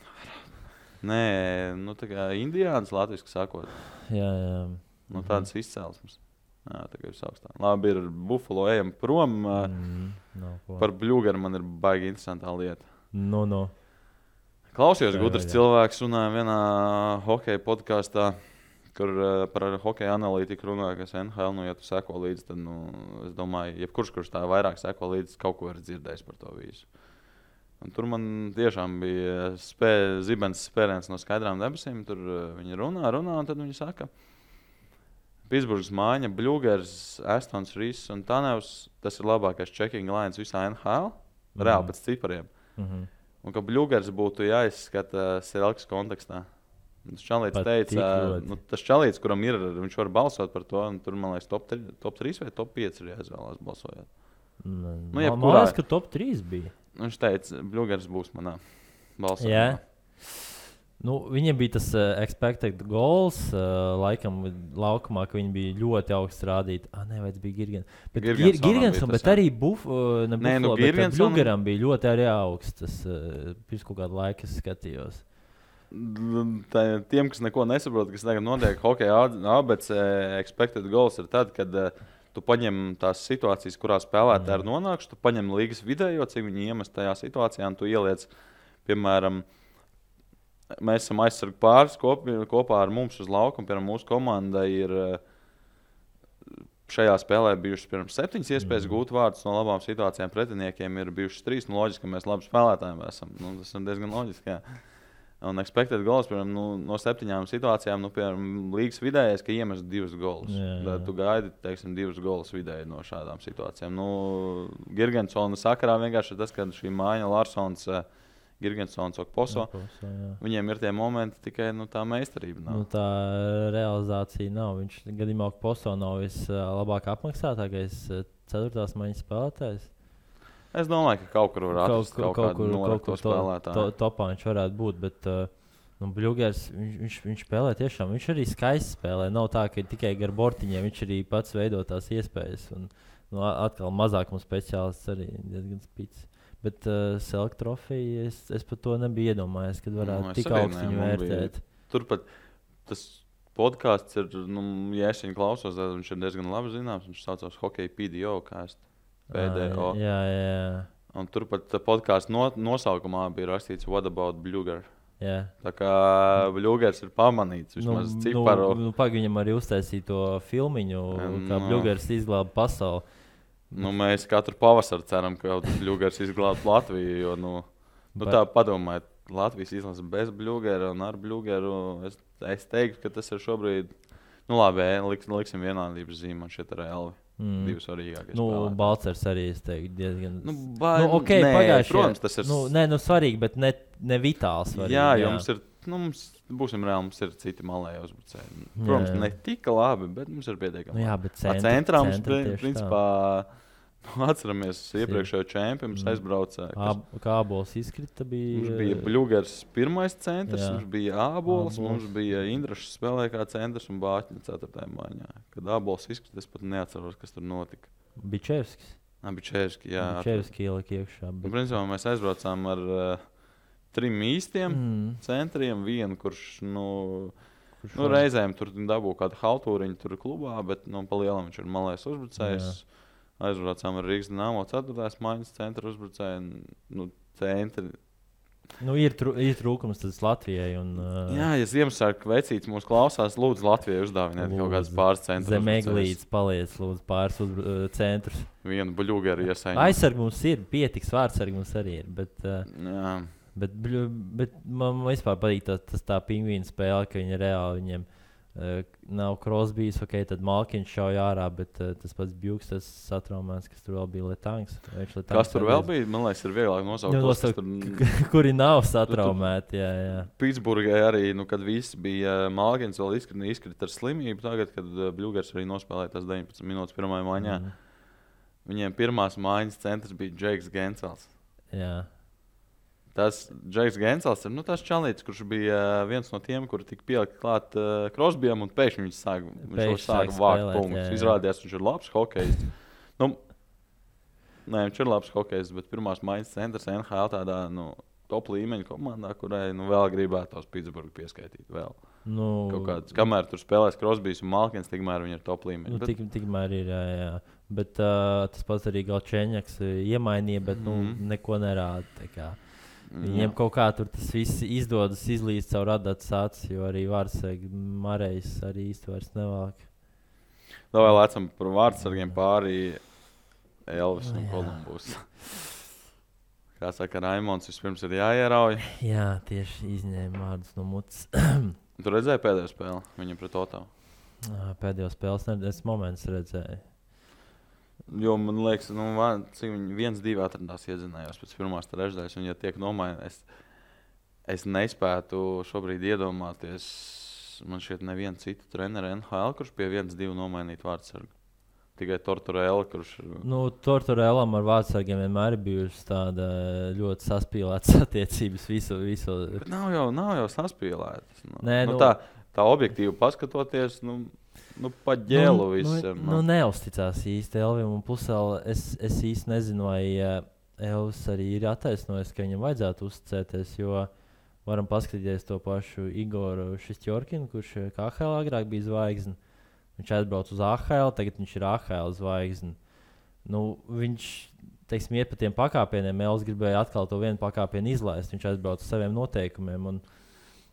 Nē, tā kā indiāns latviski sakot. Jā. Tādas izcelsmes. Jā, tā kā visaugstāk. Labi, ir Buffalo, ejam prom. Par Bļūgaru man ir baigi interesantā lieta. Klausījos, gudrs cilvēks runāja vienā hokeja podkāstā, kur par hokeja analītiku runāja, kas NHL, ja tu seko līdzi, tad, es domāju, jebkurš tā vairāk seko līdzi, kaut ko ir dzirdējis par to visu. Un tur man tiešām bija zibens spēriens no skaidrām debesīm, tur viņi runā, un tad viņi saka, Pitsburgas mājiņa, Bļūgers, Astons, Rīss un Tanevs, tas ir labākais checking lines visā NHL, reāli pēc cipariem. Un ka Bļūgers būtu jāizskata Selks kontekstā. Tas čalīts teica, tas čalīts, kuram ir, viņš var balsot par to, un tur, man liekas, top 3 vai top 5 ir jāizvēlās balsojot. Man liekas, ka top 3 bija. Viņš teica, Bļūgers būs manā balsojumā. Yeah. Viņiem bija tas expected goals, laikam laukumā, ka viņi bija ļoti augsts rādīti. Nevajadz bija Girgensonam, bet arī Bļūgeram bija ļoti arī augsts. Tas pirms kaut kādu laiku es skatījos. Tiem, kas neko nesaprot, kas tagad notiek hokeja ABC, expected goals ir tad, kad tu paņem tās situācijas, kurā spēlētāji ir nonākuši, tu paņem līgas vidējo, cik viņi iemest tajā situācijā, un tu ieliec, piemēram, mēs esam aizsargu pāris kopā ar mums uz laukumu. Piemēram, mūsu komandai ir šajā spēlē bijušas pirms 7 iespējas gūt vārdus no labām situācijām. Pretiniekiem ir bijušas 3. Loģiski, ka mēs labi spēlētājiem esam. Tas ir diezgan loģiski. Jā. Un expected goals, piemēram, no 7 situācijām, piemēram, līgas vidējais, ka iemest 2 golus. Tad tu gaidi, teiksim, 2 golus vidēji no šādām situācijām. Girgensona sakarā vienkārši tas, ka šī māja Larsons, Girgensons, Okposo, viņiem ir tie momenti, tikai tā meistarība nav. Tā realizācija nav. Viņš gadījumā Okposo nav vislabāk apmaksātākais 4. maiņas spēlētājs. Es domāju, ka kaut kur var atrast kaut kādu norakto spēlētāju. Topā viņš varētu būt, bet Bļūgers, viņš spēlē tiešām. Viņš arī skaisti spēlē. Nav tā, ka tikai gar bortiņiem viņš arī pats veido tās iespējas. Un, atkal mazākuma speciālists arī diezgan spīts. Bet Select trofeju es par to nebiju iedomājies, kad varētu tik augstu viņu vērtēt. Turpat tas podkāsts ir, ja es viņu klausos, tad viņš ir diezgan labi zināms. Viņš saucās Hockey PDO, kā es PDO. Jā. Un turpat podkāstu nosaukumā bija rakstīts What about Bļūger? Jā. Tā kā Bļūgers ir pamanīts vismaz ciparu. Viņam arī uztaisīja to filmiņu, kā Bļūgers izglāba pasauli. Mēs katru pavasaru ceram, ka Bļūgers izglābs Latviju, jo tā padomājiet, Latvijas izlase bez Bļūgera un ar Bļūgeru. Es teiktu, ka tas ir šobrīd, labi, liksim vienādības zīmi šeit ar Elvi. 2 svarīgākie spēlētāji. Balcers arī, es teiktu, diezgan... Pagājuši. Protams, tas ir... svarīgi, bet ne vitāli svarīgi. Jā, jo mums ir, būsim reāli, mums ir citi malēji uzbrucēji. Protams, ne tik labi, bet mums ir pietiekami. Jā, bet centrā mums, principā, atceramies iepriekšējo čempionu, mums aizbrauca. Kā Ābols izkrita bija... Mums bija Bļūgers pirmais centrs, mums bija Ābols, mums bija Indrašs spēlē kā centrs un Bāķņa 4. maiņā. Kad Ābols izkrita, es pat neatceros, kas tur notika. Bičevskis. Bičevski, jā. Bičevski ielika iekšā. Principā mēs aizbraucām ar 3 īstiem centriem, vienu, kurš reizēm tur dabū kādu haltūriņu tur klubā, bet pa lielam viņš ir malējs uzbrucējs. Aizbraucām ar Rīgas Dinamo 4. maiņas centra uzbrucēju. Centri. Ir trūkums tas Latvijai. Jā, ja Ziemassvētku vecītis mūs klausās, lūdzu Latvijai uzdāviniet kaut kādas pāris centrus. Zemeglītes paliec, lūdzu pāris centrus. Vienu Bļūgeru iesaņu. Aizsargi mums ir, pietiks, vārdsargi mums arī ir. Jā. Bet man vispār patīk tā pingvīna spēle, ka viņi reāli viņiem nav Crosbys, tad Malkiņš šauj ārā, bet tas pats Bjūks, tas satraumēts, kas tur vēl bija Letangs. Kas tur vēl bija? Man liekas, ir vieglāk nosaukt. Kuri nav satraumēti, jā. Pitsburgai arī, kad viss bija Malkiņš vēl izkrita ar slimību, tagad, kad Bļūgers arī nospēlēja tās 19 minūtes pirmajā maiņā. Viņiem pirmās maiņas centrs bija Džeiks Gensels. Jā. Tas Džeiks Gensels ir tas čalītis, kurš bija viens no tiem, kuri tika pielikt klāt Crosbyam un pēkšņi viņš sāka vākt punktus. Izrādījās, viņš ir labs hokejists. Viņš ir labs hokejists, bet pirmās maiņas centrs NHL tādā top līmeņa komandā, kurai vēl gribētos Pitsburgu pieskaitīt vēl. Kamēr tur spēlēs Crosbys un Malkins, tikmēr viņi ir top līmeņa. Tikmēr ir, jā. Bet tas pats arī Galčēņaks iemainīja, bet neko nerāda. Viņiem kaut kā tur tas viss izdodas izlīst caur radātas acis, jo arī vārdsargi Marejs arī īsti vairs nevāk. Vēl lecam par vārdsargiem pārī Elvis un Kolumbus. Kā saka, Raimonds vispirms ir jāierauj. Jā, tieši izņēma vārdus no mutes. Tu redzēji pēdējo spēli viņam pret Otavu? Pēdējo spēles es moments redzēju. Jo man liekas, cik viņi 1-2 atradās iedzinājās pēc pirmās trešdaļas, un ja tiek nomainīts, es nespētu šobrīd iedomāties, man šķiet nevienu citu treneru NHL, kurš pie 1-2 nomainīt vārdsargu. Tikai Tortorella, kurš... Tortorellam ar vārdsargiem vienmēr ir bijušas tāda ļoti saspīlētas attiecības visu. Bet nav jau saspīlētas. Tā objektīvi paskatoties, pa ģēlu visam. Neuzticās īsti Elvim, un pusēl es īsti nezinu, vai Elvis arī ir attaisnojis, ka viņam vajadzētu uzticēties, jo varam paskatīties to pašu Igoru Šistjorkinu, kurš KHL agrāk bija zvaigzne. Viņš aizbrauc uz AHL, tagad viņš ir AHL zvaigzne. Viņš, iet pa tiem pakāpieniem, Elvis gribēja atkal to vienu pakāpienu izlaist, viņš aizbrauc uz saviem noteikumiem, un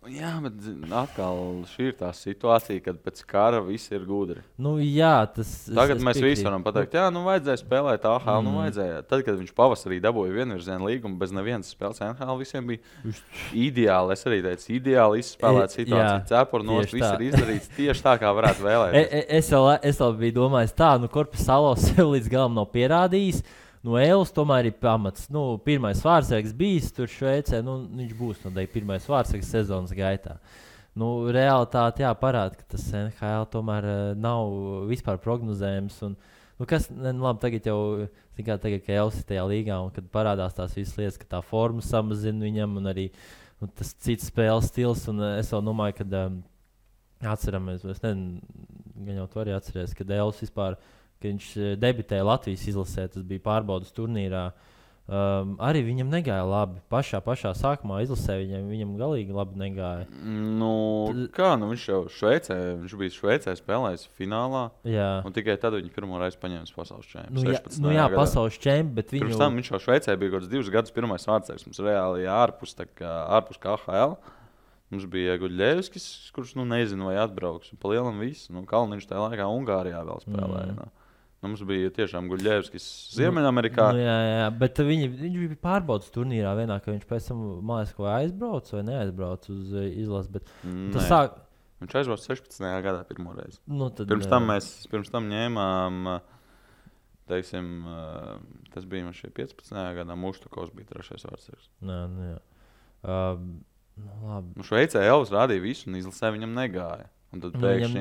Jā, bet atkal šī ir tā situācija, kad pēc kara viss ir gudri. Tagad mēs visi varam pateikt, vajadzēja spēlēt AHL, vajadzēja. Tad, kad viņš pavasarī dabūja vienvirziena līgumu bez nevienas spēles NHL, visiem bija ideāli. Es arī teicu, ideāli izspēlēt situāciju. Cepuri nost, viss ir izdarīts tieši tā, kā varētu vēlēties. Es vēl biju domājis tā, Korpisalo sev līdz galam nav pierādījis. Elis tomēr ir pamats. Pirmais vārdsargs bijis tur Šveicē. Viņš būs pirmais vārdsargs sezonas gaitā. Realitāte parāda, ka tas NHL tomēr nav vispār prognozējams. Labi, tagad jau, tagad, ka Elis ir tajā līgā un kad parādās tās visas lietas, ka tā forma samazina viņam un arī tas cits spēles stils. Es vēl domāju, ka atceramies, es nezinu, gan jau to arī atceries, kad Elis vispār kad viņš debitēja Latvijas izlasē, tas bija pārbaudas turnīrā. Arī viņam negāja labi. Pašā sākumā izlasē viņam galīgi labi negāja. Viņš jau bija Šveicē spēlējis finālā. Jā. Un tikai tad viņš pirmo reizi paņēma pasaules čempionu. Pasaules čempionu, bet pirms tam viņš jau Šveicē bija kaut kāds 2 gadus pirmais vārdsargs. Mums reāli ārpus KHL. Mums bija Guļļevskis, kurš nezinu, vai atbrauks. Pa lielam viss. Kalniņš tajā laikā Ungārijā vēl spēlēja. Mums bija tiešām Guļļevskis Ziemeļamerikā. Jā, bet viņš bija pārbaudas turnīrā vienā, ka viņš pēc tam mājas ko aizbrauc vai neaizbrauc uz izlasi. Viņš aizbrauc 16. gadā pirmo reizi. Pirms tam ņēmām, teiksim, tas bija man šie 15. gadā, Muštukovs bija 3. vārdsargs. Labi. Šveicē Elis rādīja visu un izlasē viņam negāja. Un tad pēkšņi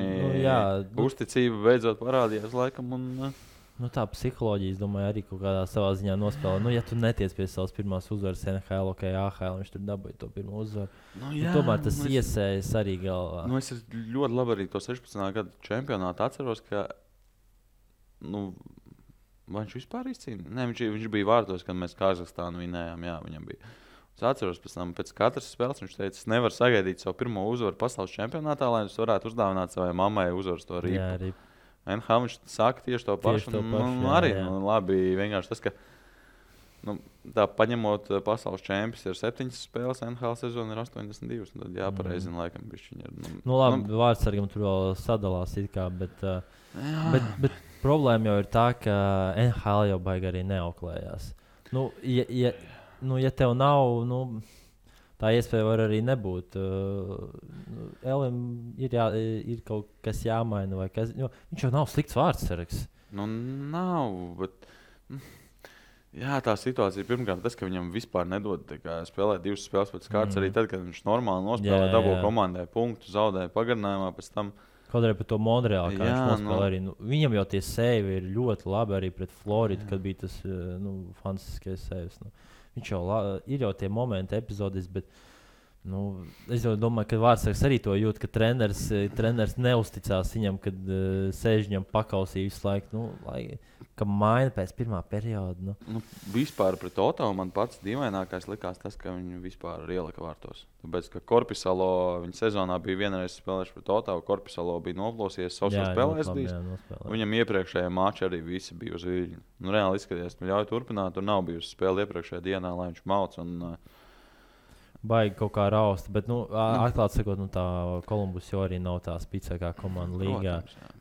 uzticība beidzot parādījās laikam. Tā psiholoģija, es domāju, arī kaut kādā savā ziņā nospēlē. Ja tu netiec pie savas pirmās uzvaras NHL, AHL, viņš tur dabūja to pirmo uzvaru. Tomēr tas iesējas arī galvā. Es ļoti labi arī to 16. gadu čempionātu atceros, ka vai viņš vispār izcīnīja? Nē, viņš bija vārtos, kad mēs Kazahstānu vinējām. Jā, viņam bija. Es atceros, pēc katras spēles viņš teica, es nevaru sagaidīt savu pirmo uzvaru pasaules čempionātā, lai es varētu uzdāvināt savai mammai uzvaras to rīpu. Jā, arī. NHL viņš saka tieši to pašu. Arī labi, vienkārši tas, ka tā paņemot pasaules čempions ir 7 spēles, NHL sezona ir 82. Tad jāpareizina laikam bišķiņi ir. Labi, vārdsargam tur vēl sadalās it kā, bet problēma jau ir tā, ka NHL jau baigi arī neauklējās. Ja tev nav, tā iespēja var arī nebūt. Elim ir kaut kas jāmaina vai kas. Viņš jau nav slikts vārdsargs. Nav, bet tā situācija pirmkārt tas, ka viņam vispār nedod spēlēt 2 spēles pēc kārtas. Arī tad, kad viņš normāli nospēlē, dabū komandai punktu, zaudēja pagarinājumā pēc tam. Kaut arī par to Montreālu, kā viņš nospēlē arī. Viņam jau tie sēvi ir ļoti labi arī pret Floridu, kad bija tas fantastiskais sēvis. Viņš jau ir jau tie momenti, epizodes, bet es jau domāju, ka vārdsargs arī to jūt, ka treneris neusticās viņam, kad sēž viņam pakausī visu laiku, ka maina pēc pirmā perioda. Vispār pret Otavu man pats dīvainākais likās tas, ka viņu vispār ielika vārtos. Tāpēc, ka Korpisalo viņa sezonā bija vienreiz spēlējuši pret Otavu, Korpisalo bija noplosies, savs spēlēs bijis. Viņam iepriekšējā mačā arī visi bija uz viļņu. Reāli izskaties, ļauj turpināt, tur nav bijusi spēle iepriekšējā dienā, lai viņš mauc un baigi kaut kā raust, bet, atklāt sakot, tā Kolumbus jau arī nav tā spēcīgākā komanda līgā.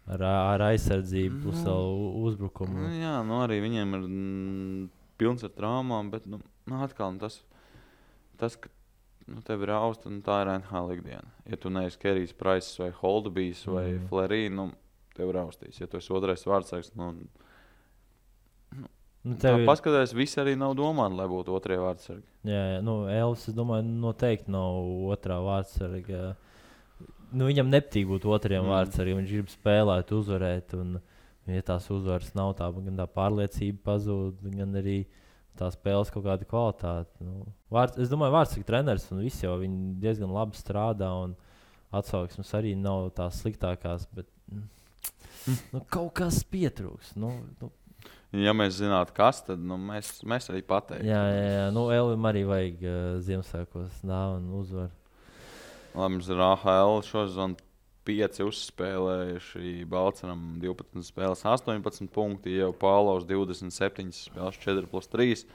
Ar aizsardzību plus uzbrukumu. Arī viņiem ir pilns ar traumām, bet, atkal tas, ka tev ir rausta, tā ir NHL ikdiena. Ja tu neesi Kerijs Price vai Holdbijs vai Flerī, tev raustīs. Ja tu esi otrais vārdsargs, paskatās, visi arī nav domāti, lai būtu otrie vārdsargi. Jā, Elis, es domāju, noteikti nav otrā vārdsarga. Viņam nepatīk būt otriem vārdsargiem. Viņš grib spēlēt, uzvarēt. Un, ja tās uzvaras nav, gan tā pārliecība pazūd, gan arī tā spēles kaut kāda kvalitāte. Es domāju, vārdsarga treneris un visi jau viņi diezgan labi strādā. Un atsauksmes arī nav tās sliktākās, bet kaut kas pietrūks. Ja mēs zinātu, kas, tad mēs arī pateiktu. Jā. Elim arī vajag Ziemassvētkos dāvanu uzvaru. Labi, mums ir AHL šosezon 5 uzspēlējuši. Balceram 12 spēles, 18 punkti. Jau Pālaus 27 spēles, 4+3.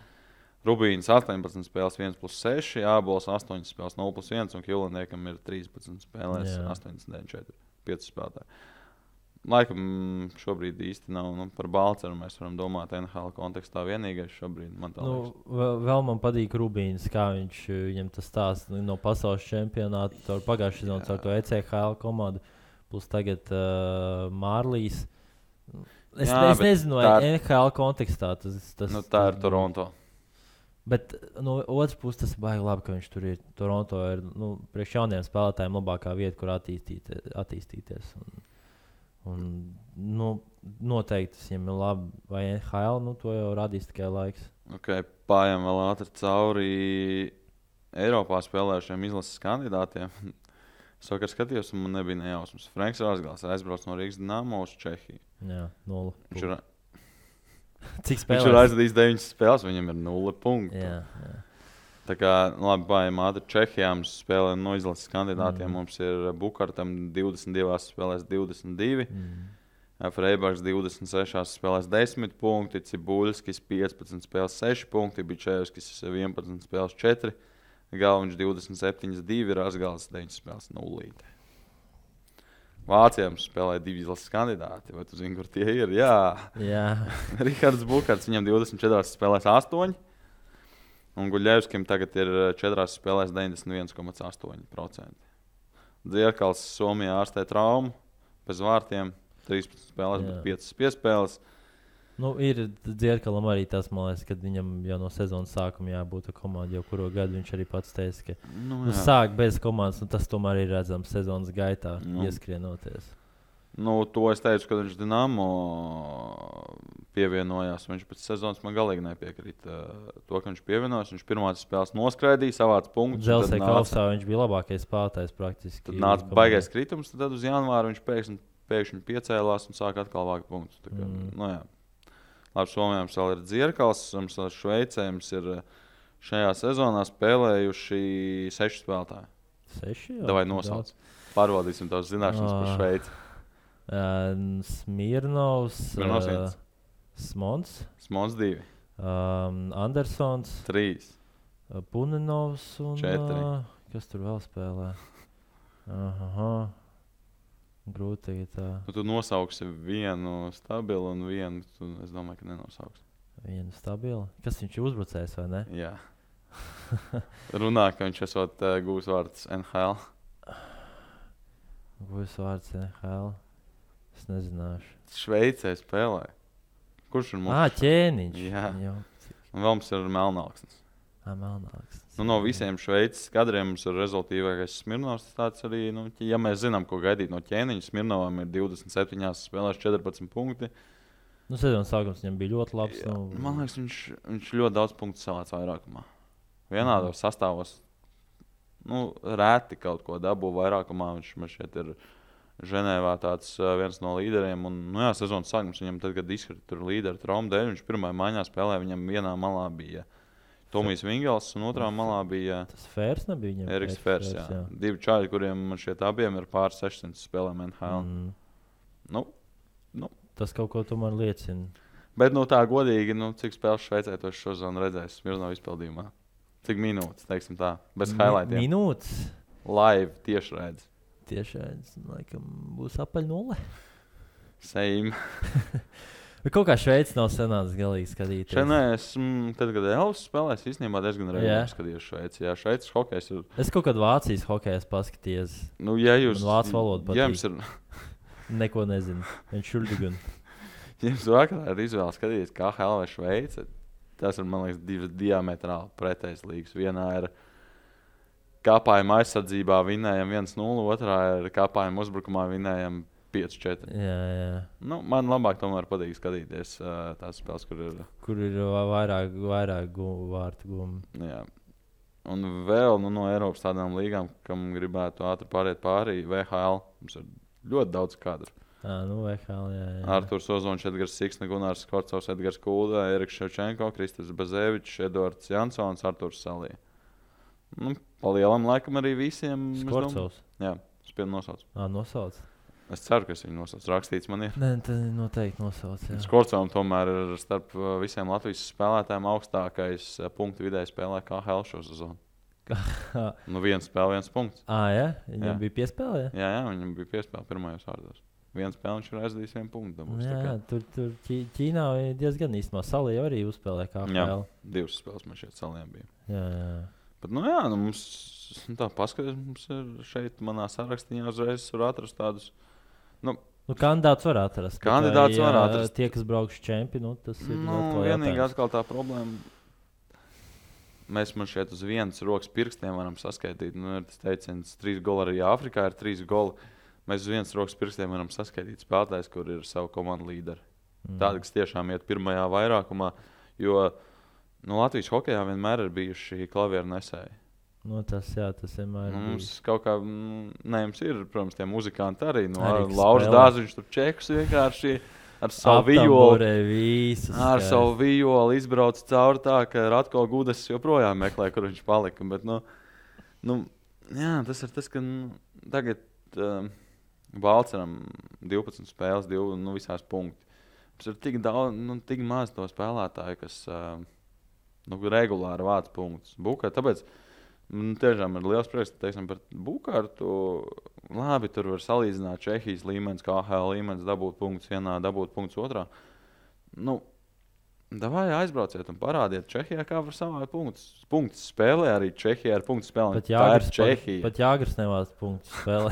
Rubīns 18 spēles 1+6, Ābols 8 spēles 0+1 un Kilaniekam ir 13 spēlēs 89, 5 spēlētāji. Laikam šobrīd īsti nav par Balceru. Mēs varam domāt NHL kontekstā vienīgais šobrīd. Vēl man patīk Rubīns, kā viņam tas stāsts no pasaules čempionāta. Pagājušajā sezonā ar to ECHL komandu, plus tagad Mārlīs. Es nezinu, vai NHL kontekstā tas tā ir Toronto. Bet no otras puses tas ir baigi labi, ka viņš tur ir. Toronto ir priekš jauniem spēlētājiem labākā vieta, kur attīstīties. Un noteikti tas viņam ir labi. Vai NHL, to jau radīs tikai laiks. Pājām vēl ātri cauri Eiropā spēlējušiem izlases kandidātiem. Es vakar skatījos, un man nebija nejausmas. Franks Rāzgals aizbrauc no Rīgas Dinamo uz Čehiju. Jā, 0. Cik spēlēs? Viņš ir aizvadījis 9 spēles, viņam ir 0 punktu. Jā. Tā kā, labi, pājām ātri Čehijā mums spēlē no izlases kandidātiem. Mums ir Bukartam 22 spēlēs 22. Freibaks 26 spēlēs 10 punkti. Cibuļskis 15 spēlēs 6 punkti. Bičevskis 11 spēlēs 4. Galviņš 27, 2, Rāzgals 9 spēles 0. Vācijā mums spēlēja 2 izlases kandidāti. Vai tu zini, kur tie ir? Jā. Rihards Bukarts, viņam 24 spēlēs 8. Un Guļevskim tagad ir 4 spēlēs 91,8%. Dzierkals Somijā ārstē traumu, bez vārtiem, 13 spēlēs, bet 5 piespēles. Ir Dzierkalam arī tas, man liekas, kad viņam jau no sezonas sākuma jābūt komandai, jau kuru gadu viņš arī pats teica, ka sāk bez komandas, un tas tomēr ir redzams sezonas gaitā, ieskrienoties. To es teicu, kad viņš Dinamo pievienojās. Viņš pēc sezonas man galīgi nepiekrīt to, ka viņš pievienojās. Viņš pirmās spēles noskraidīja, savāca punktus. Dželsē kausā viņš bija labākais spēlētājs praktiski. Tad nāca baigais kritums, tad uz janvāru viņš pēkšņi piecēlās un sāka atkal vākt punktus. Labi, Somijā mums vēl ir Dzierkals, mums vēl Šveicē mums ir šajā sezonā spēlējuši 6 spēlētāji. 6? Davai nosauc. Pārbaudīsim tavas zināšanas par Šveici. Smirnovs, Smons 2, Andersons 3, Punenovs un 4. Kas tur vēl spēlē? Grūti tagad tā. Tu nosauksi vienu stabilu un vienu, es domāju, ka nenosauksi. Vienu stabilu? Kas viņš ir uzbrucējs vai ne? Jā. Runā, ka viņš esot gūs vārds NHL. Gūs vārds NHL? Es nezināšu. Šveicē spēlē. Kurš ir mums? Ķēniņš. Jā. Un vēl mums ir Melnāksnis. Melnāksnis. No visiem Šveices kadriem mums ir rezultīvākais Smirnovs. Tāds arī, ja mēs zinām, ko gaidīt no ķēniņa, Smirnovam ir 27 spēlēs 14 punkti. Sezonas sākums viņam bija ļoti labs. Man liekas, viņš ļoti daudz punktu salāca vairākumā. Vienādos sastāvos rēti kaut ko dabū vairākumā. Viņš šeit ir Ženēvā tāds viens no līderiem. Un, sezonas sākums viņam tad, kad izkrita tur līderi traumu dēļ, viņš pirmajā maiņā spēlēja, viņam vienā malā bija Tomijs Vingels un otrā malā bija tas Fērs nebija viņam? Eriks Fērs, jā. 2 čāļi, kuriem man šķiet abiem ir pār 600 spēlēm NHL. Tas kaut ko tomēr liecina. Bet tā godīgi, cik spēles Šveicē to šodien redzēs Smirnova izpildījumā? Cik minūtes, teiksim tā, bez highlightiem? Minūtes? Live tiešraidzi. Tiešraidzi, laikam, būs apaļ 0. Same. Bet kaut kā Šveice nav senāts galīgi skatīties. Šenēs, tad, kad Elvis spēlēs, īstenībā diezgan regulāri skatījos Šveici. Jā, Šveices hokejs ir... Es kaut kad Vācijas hokejs paskaties. Ja jūs... Vācu valodu patīk. Jums ir... Neko nezinu. Viņš šuldigun. Jums vakarā ir izvēle skatīties KHL vai Šveice. Tas ir, man liekas, 2 diametrāli pretējas līgas. Vienā ir kāpājuma aizsardzībā vinējam 1-0, otrā ir kāpājuma uzbrukumā vinējam 5-4. Jā. Man labāk tomēr patīk skatīties tās spēles, kur ir vairāk vārtu gumi. Jā. Un vēl no Eiropas tādām līgām, kam gribētu ātri pāriet pārī, VHL. Mums ir ļoti daudz kadru. VHL, jā. Arturs Ozons, Edgars Siksne, Gunārs Skorcovs, Edgars Kulda, Eriks Ševčenko, Kristers Bazevičs, Eduards Jansons, Arturs Salī. Pa lielam laikam arī visiem. Skorcovs? Jā, spied nosauc. Nosauc. Es ceru, ka es viņu nosaucu. Rakstīts man ir. Nē, tad noteikti nosauc. Skorcovam tomēr ir starp visiem Latvijas spēlētājiem augstākais punktu vidēji spēlē KHL šo sezonu. Viena spēle, 1 punkts. Ja? Viņam bija piespēle? Jā, viņam bija piespēle pirmajos vārdos. Viens spēle viņš ir aizdījis 1 punktu. Tur Ķīnā diezgan īstenībā Salī arī uzspēlē KHL. Jā, 2 spēles man šeit Saliem bija. Jā. Bet, mums tā paskatās, mums ir šeit manā sarakstiņā uzreiz var atrast tādus. Kandidāts var atrast. Kandidāts var atrast. Tie, kas braukšu čempi, tas ir vienīgi atkal tā problēma. Mēs man šeit uz vienas rokas pirkstiem varam saskaitīt. Ir tas teiciens, 3 goli arī Āfrikā ir 3 goli. Mēs uz vienas rokas pirkstiem varam saskaitīt spēlētājs, kur ir savu komandu līderi. Tādi, kas tiešām iet pirmajā vairākumā, jo Latvijas hokejā vienmēr ir bijuši klavieru nesēji. Tas vienmēr ir. Mums kaut kā, mums ir, protams, tie muzikanti arī. Lauris Dāziņš tur čekus vienkārši ar savu vijoli izbrauc cauri tā, ka Ratko Gudas joprojām meklē, kur viņš palika. Bet, tas ir tas, ka tagad Balceram 12 spēles, 2 visās punkti. Mums ir tik daudz, tik maz to spēlētāju, kas regulāri vāc punktus. Tāpēc tiešām ir liels prieks, teiksim, par Bukārtu. Labi, tur var salīdzināt Čehijas līmenis, KHL līmenis, dabūt punktus vienā, dabūt punktus otrā. Davai aizbrauciet un parādiet Čehijā, kā var savākt punktus. Punktus spēlē arī Čehijā ar punktu spēlēm. Pat Jāgars nevāc punktus spēlē.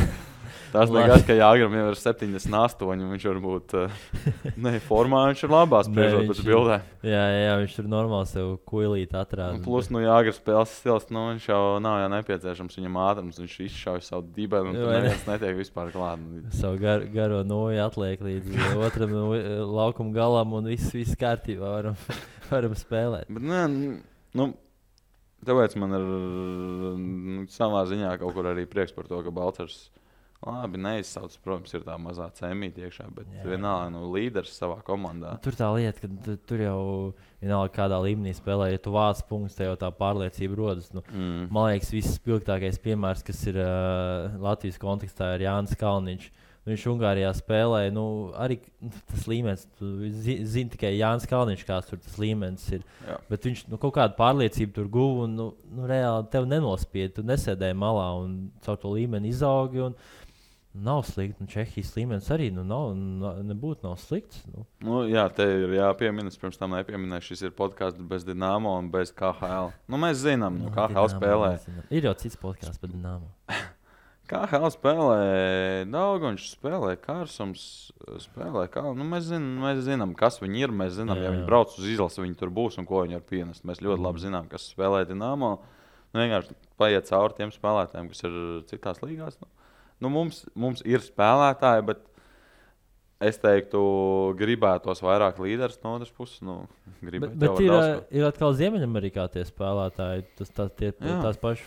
Tas liekas, ka Jāgram jau ir 78, un viņš varbūt formā, viņš ir labā spriežot pēc bildēm. Jā, viņš tur normāli sev kuilīt atrāda. Plus, Jāgra spēles stils, viņš jau nav nepieciešams viņam ātrums, viņš izšauj savu dibenu, un tur neviens netiek vispār klāt. Savu garo noju atliek līdz otram laukuma galam, un viss kārtībā varam spēlēt. Bet, tāpēc man ir savā ziņā kaut kur arī prieks par to, ka Balcers labi neizsauc, protams, ir tā mazā cēmīte iekšā, bet vienalga līderis savā komandā. Tur tā lieta, ka tur jau vienalga kādā līmenī spēlē, ja tu vāc punktus, te jau tā pārliecība rodas. Man liekas, viss spilgtākais piemērs, kas ir Latvijas kontekstā, ir Jānis Kalniņš. Viņš Ungārijā spēlē, arī tas līmenis, zini tikai Jānis Kalniņš, kāds tur tas līmenis ir. Jā. Bet viņš kaut kādu pārliecību tur guva un reāli tev nenospied, tu nesēdēji malā un caur to līmeni izaugi. Nav slikti. Čehijas līmenis arī nebūtu slikts. Jā, te ir jāpiemina. Pirms tam nepieminēju, šis ir podkāsts bez Dinamo un bez KHL. Mēs zinām, KHL spēlē. Ir jau cits podkāsts par Dinamo. KHL spēlē Daugonš, spēlē Kārsums, spēlē mēs zinām, kas viņi ir. Mēs zinām, ja viņi brauc uz izlasi, viņi tur būs un ko viņi var pienest. Mēs ļoti labi zinām, kas spēlē Dinamo. Vienkārši paiet cauri tiem spēlētājiem, kas ir citās līgās. Mums ir spēlētāji, bet es teiktu, gribētos vairāk līderus no otras puses. Bet ir atkal Ziemeļamerikā tie spēlētāji, tās pašas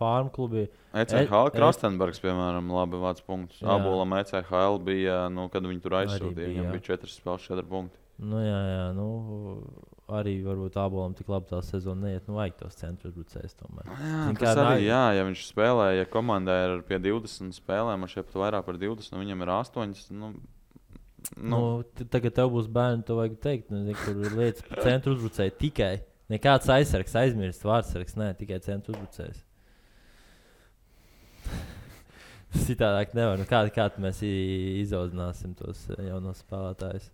farm klubi. ECHL Krastenbergs, piemēram, labi vāc punktus. Abolam ECHL bija, kad viņi tur aizsūtīja, viņam bija 4 spēles, 4 punkti. Arī varbūt Abolam tik labi tā sezona neiet, vajag tos centru uzbrucējus tomēr. Tas arī, ja viņš spēlē, ja komandai ir pie 20 spēlēm, man šeit pat vairāk par 20, viņam ir 8. Tagad tev būs bērni, to vajag teikt, kur ir lietas par centru uzbrucēju tikai. Nekāds aizsargs, aizmirst vārdsargs, tikai centru uzbrucējs. Citādāk nevar. Kādi mēs izaudzināsim tos jaunos spēlētājus?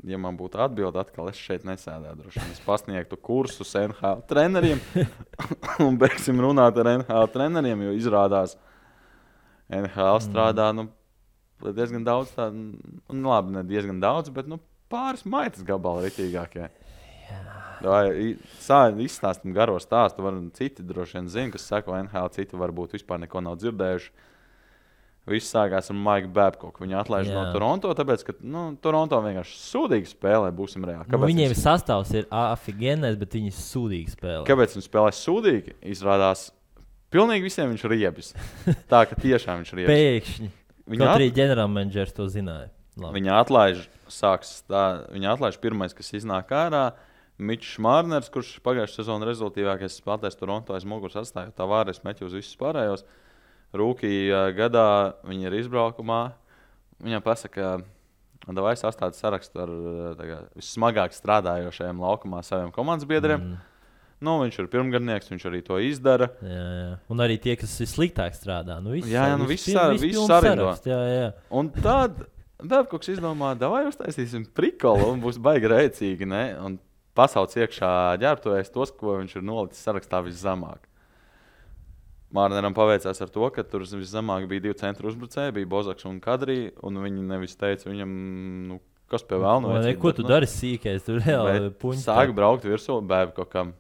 Ja man būtu atbilde, atkal es šeit nesēdētu. Droši vien es pasniegtu kursus NHL treneriem un beigsim runāt ar NHL treneriem, jo izrādās NHL strādā diezgan daudz tādu, labi, ne diezgan daudz, bet pāris maitas gabali ritīgākie. Izstāstam garo stāstu, citi droši vien zina, kas seko NHL, citi varbūt vispār neko nav dzirdējuši. Viss sākās ar Maiku Babkoku. Viņu atlaiž no Toronto, tāpēc, ka Toronto vienkārši sūdīgi spēlē, būsim reāli. Viņiem sastāvs ir afigenais, bet viņi sūdīgi spēlē. Kāpēc viņi spēlē sūdīgi? Izrādās, pilnīgi visiem viņš riebis. Tā, ka tiešām viņš riebis. Pēkšņi. Kaut arī ģenerālmenedžers to zināja. Viņa atlaiž pirmais, kas iznāk ārā. Mičs Mārners, kurš pagājušā sezona rezultīvākais spēlētājs Toronto aiz muguras atstāja. Tā vārēs meķi uz visus pārējos. rūkī gadā viņi ir izbraukumā. Viņam pasaka, vai sastāda sarakstu ar vissmagāk strādājošajiem laukumā saviem komandas biedriem. Nu, viņš ir pirmgadnieks, viņš arī to izdara. Jā. Un arī tie, kas ir sliktāk strādā. Nu, viss sarindo. Un tad Babkoks izdomā, vai uztaisīsim prikolu un būs baigi rēcīgi, ne? Un pasauc iekšā ģērbtuvēs tos, ko viņš ir nolicis sarakstā viszemāk. Mārneram paveicās ar to, ka tur viszemāk bija 2 centru uzbrucēji, bija Bozaks un Kadrī, un viņi nevis teica viņam, kas pie vēlna vajadzīgi. Ko tu dari sīkais, tu reāli puņi. Sāk braukt virsū Babkokam.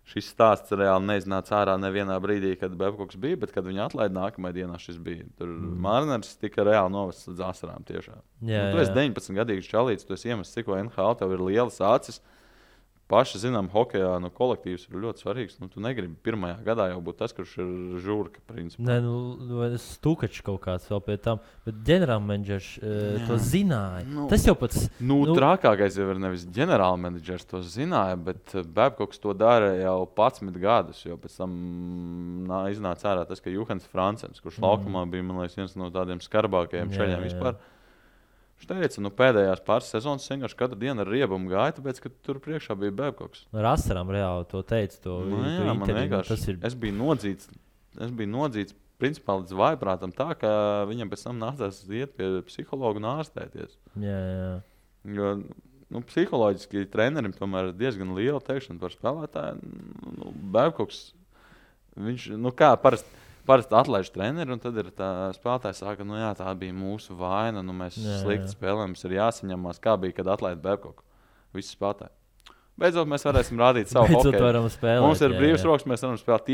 Šis stāsts reāli neiznāca ārā nevienā brīdī, kad Babkoks bija, bet kad viņi atlaida nākamajā dienā šis bija. Tur Mārners tika reāli novests līdz asarām tiešām. Tu esi 19-gadīgs čalīts, tu esi iemests cikko NHL, tev ir lielas acis. Paši zinām, hokejā kolektīvs ir ļoti svarīgs. Tu negribi pirmajā gadā jau būt tas, kurš ir žurka, principā. Nē, Stukačs kaut kāds vēl pie tam. Bet ģenerālmenedžers to zināja. Tas jau pats... Trakākais jau ir nevis ģenerālmenedžers to zināja, bet Babkoks to dara jau 11 gadus. Jo pēc tam iznāca ārā tas, ka Juhans Francens, kurš laukumā bija, man liekas, viens no tādiem skarbākajiem šaļiem vispār. Viņš teica, pēdējās pāris sezonas vienkārši katru dienu ar riebumu gāja, tāpēc, ka tur priekšā bija Babkoks. Ar asarām reāli to teica. Man vienkārši, es biju nodzīts principā līdz vājprātam tā, ka viņam pēc tam nācās iet pie psihologa un ārstēties. Jā. Jo psiholoģiski trenerim tomēr ir diezgan liela teikšana par spēlētāju. Babkoks, viņš, parasti atlaiž treneri, un tad ir tā spēlētāji saka, tā bija mūsu vaina, mēs slikti spēlējam, mums ir jāsaņemās, kā bija, kad atlaida Babkoku. Visi spēlētāji. Beidzot, mēs varēsim rādīt savu hokeju. Mums ir brīvs rokas, mēs varam spēlēt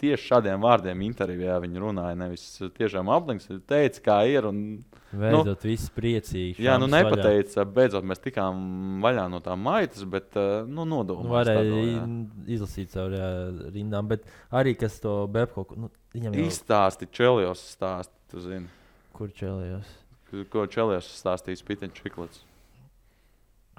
tieši šādiem vārdiem intervijā. Viņi runāja, nevis tiešām aplinks, teica, kā ir. Beidzot, viss priecīgi. Jā, nepateica, beidzot, mēs tikām vaļā no tā maitas, bet nodomājās. Varēja izlasīt caur rindām, bet arī, kas to Babkoku... Izstāsti Čelijos stāsti, tu zini. Kur Čelijos? Ko Čelijos stāstīs Piteņš Čiklets?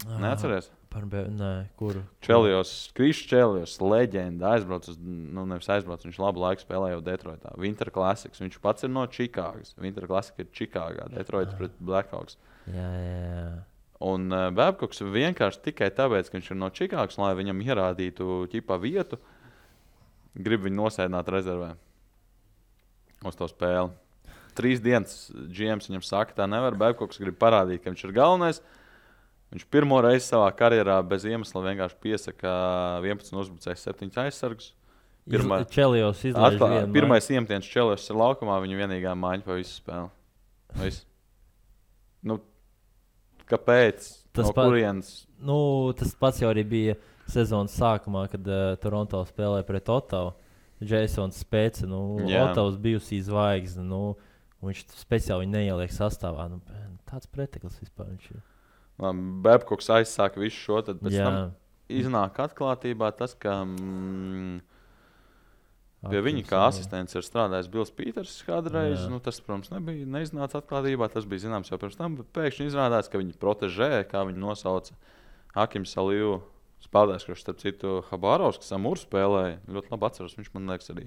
Neatceries? Nē, kur? Krišs Čelijos, leģenda, viņš labu laiku spēlēja jau Detroitā. Winter Classics, viņš pats ir no Čikāgas. Winter Classic ir Čikāgā, Detroits pret Blackhawks. Jā. Un Babkoks vienkārši tikai tāpēc, ka viņš ir no Čikāgas, lai viņam ierādītu vietu, grib viņu nosēdināt rezervē uz to spēli. 3 dienas GMs viņam saka, tā nevar. Babkoks grib parādīt, ka viņš ir galvenais. Viņš pirmo reizi savā karjerā bez iemesla vienkārši piesaka 11 uzbrucējus, 7 aizsargus. Čelijos izlaiž vienu. Pirmais iemetiens Čelijos ir laukumā, viņa vienīgā maiņa pa visu spēli. Kāpēc? Kurienes? Tas pats jau arī bija sezonas sākumā, kad Toronto spēlēja pret Ottavu. Jasons Spēca, Ottavas bijusī zvaigzne, viņš speciāli viņu neieliek sastāvā. Tāds preteklis vispār viņš ir. Babkoks aizsāka visu šo, tad pēc tam iznāk atklātībā tas, ka pie viņa kā asistents ir strādājis Bills Pīters kādreiz. Tas, protams, neiznāca atklātībā, tas bija zināms jau pirms tam, bet pēkšņi izrādās, ka viņa protežē, kā viņu nosauca Akims Aliju, spēlētājs, kurš starp citu Habārovs, kas Amūru spēlēja. Ļoti labi atceros, viņš man liekas arī.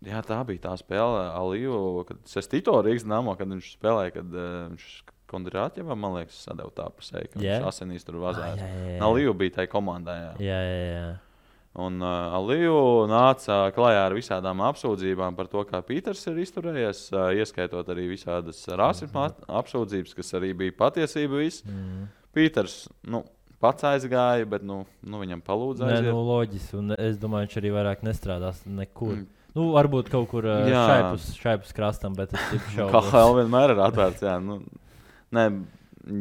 Jā, tā bija tā spēle Aliju, kad Sestito Rīgas Dynamo, kad viņš spēlēja, kad viņš Kondrātjevā, man liekas, sadeva tā pusē, ka viņš asinīs tur vazājas. Aliju bija tai komandā, Jā. Un Aliju nāca klajā ar visādām apsūdzībām par to, kā Pīters ir izturējies, ieskaitot arī visādas rasisma apsūdzības, kas arī bija patiesība viss. Pīters, pats aizgāja, bet viņam palūdza aiziet. Nē, loģiski, un es domāju, viņš arī vairāk nestrādās nekur. Varbūt kaut kur šaipus krastam, bet es tipu šaubos. Kā vienmēr ir atvērts, jā. Nē,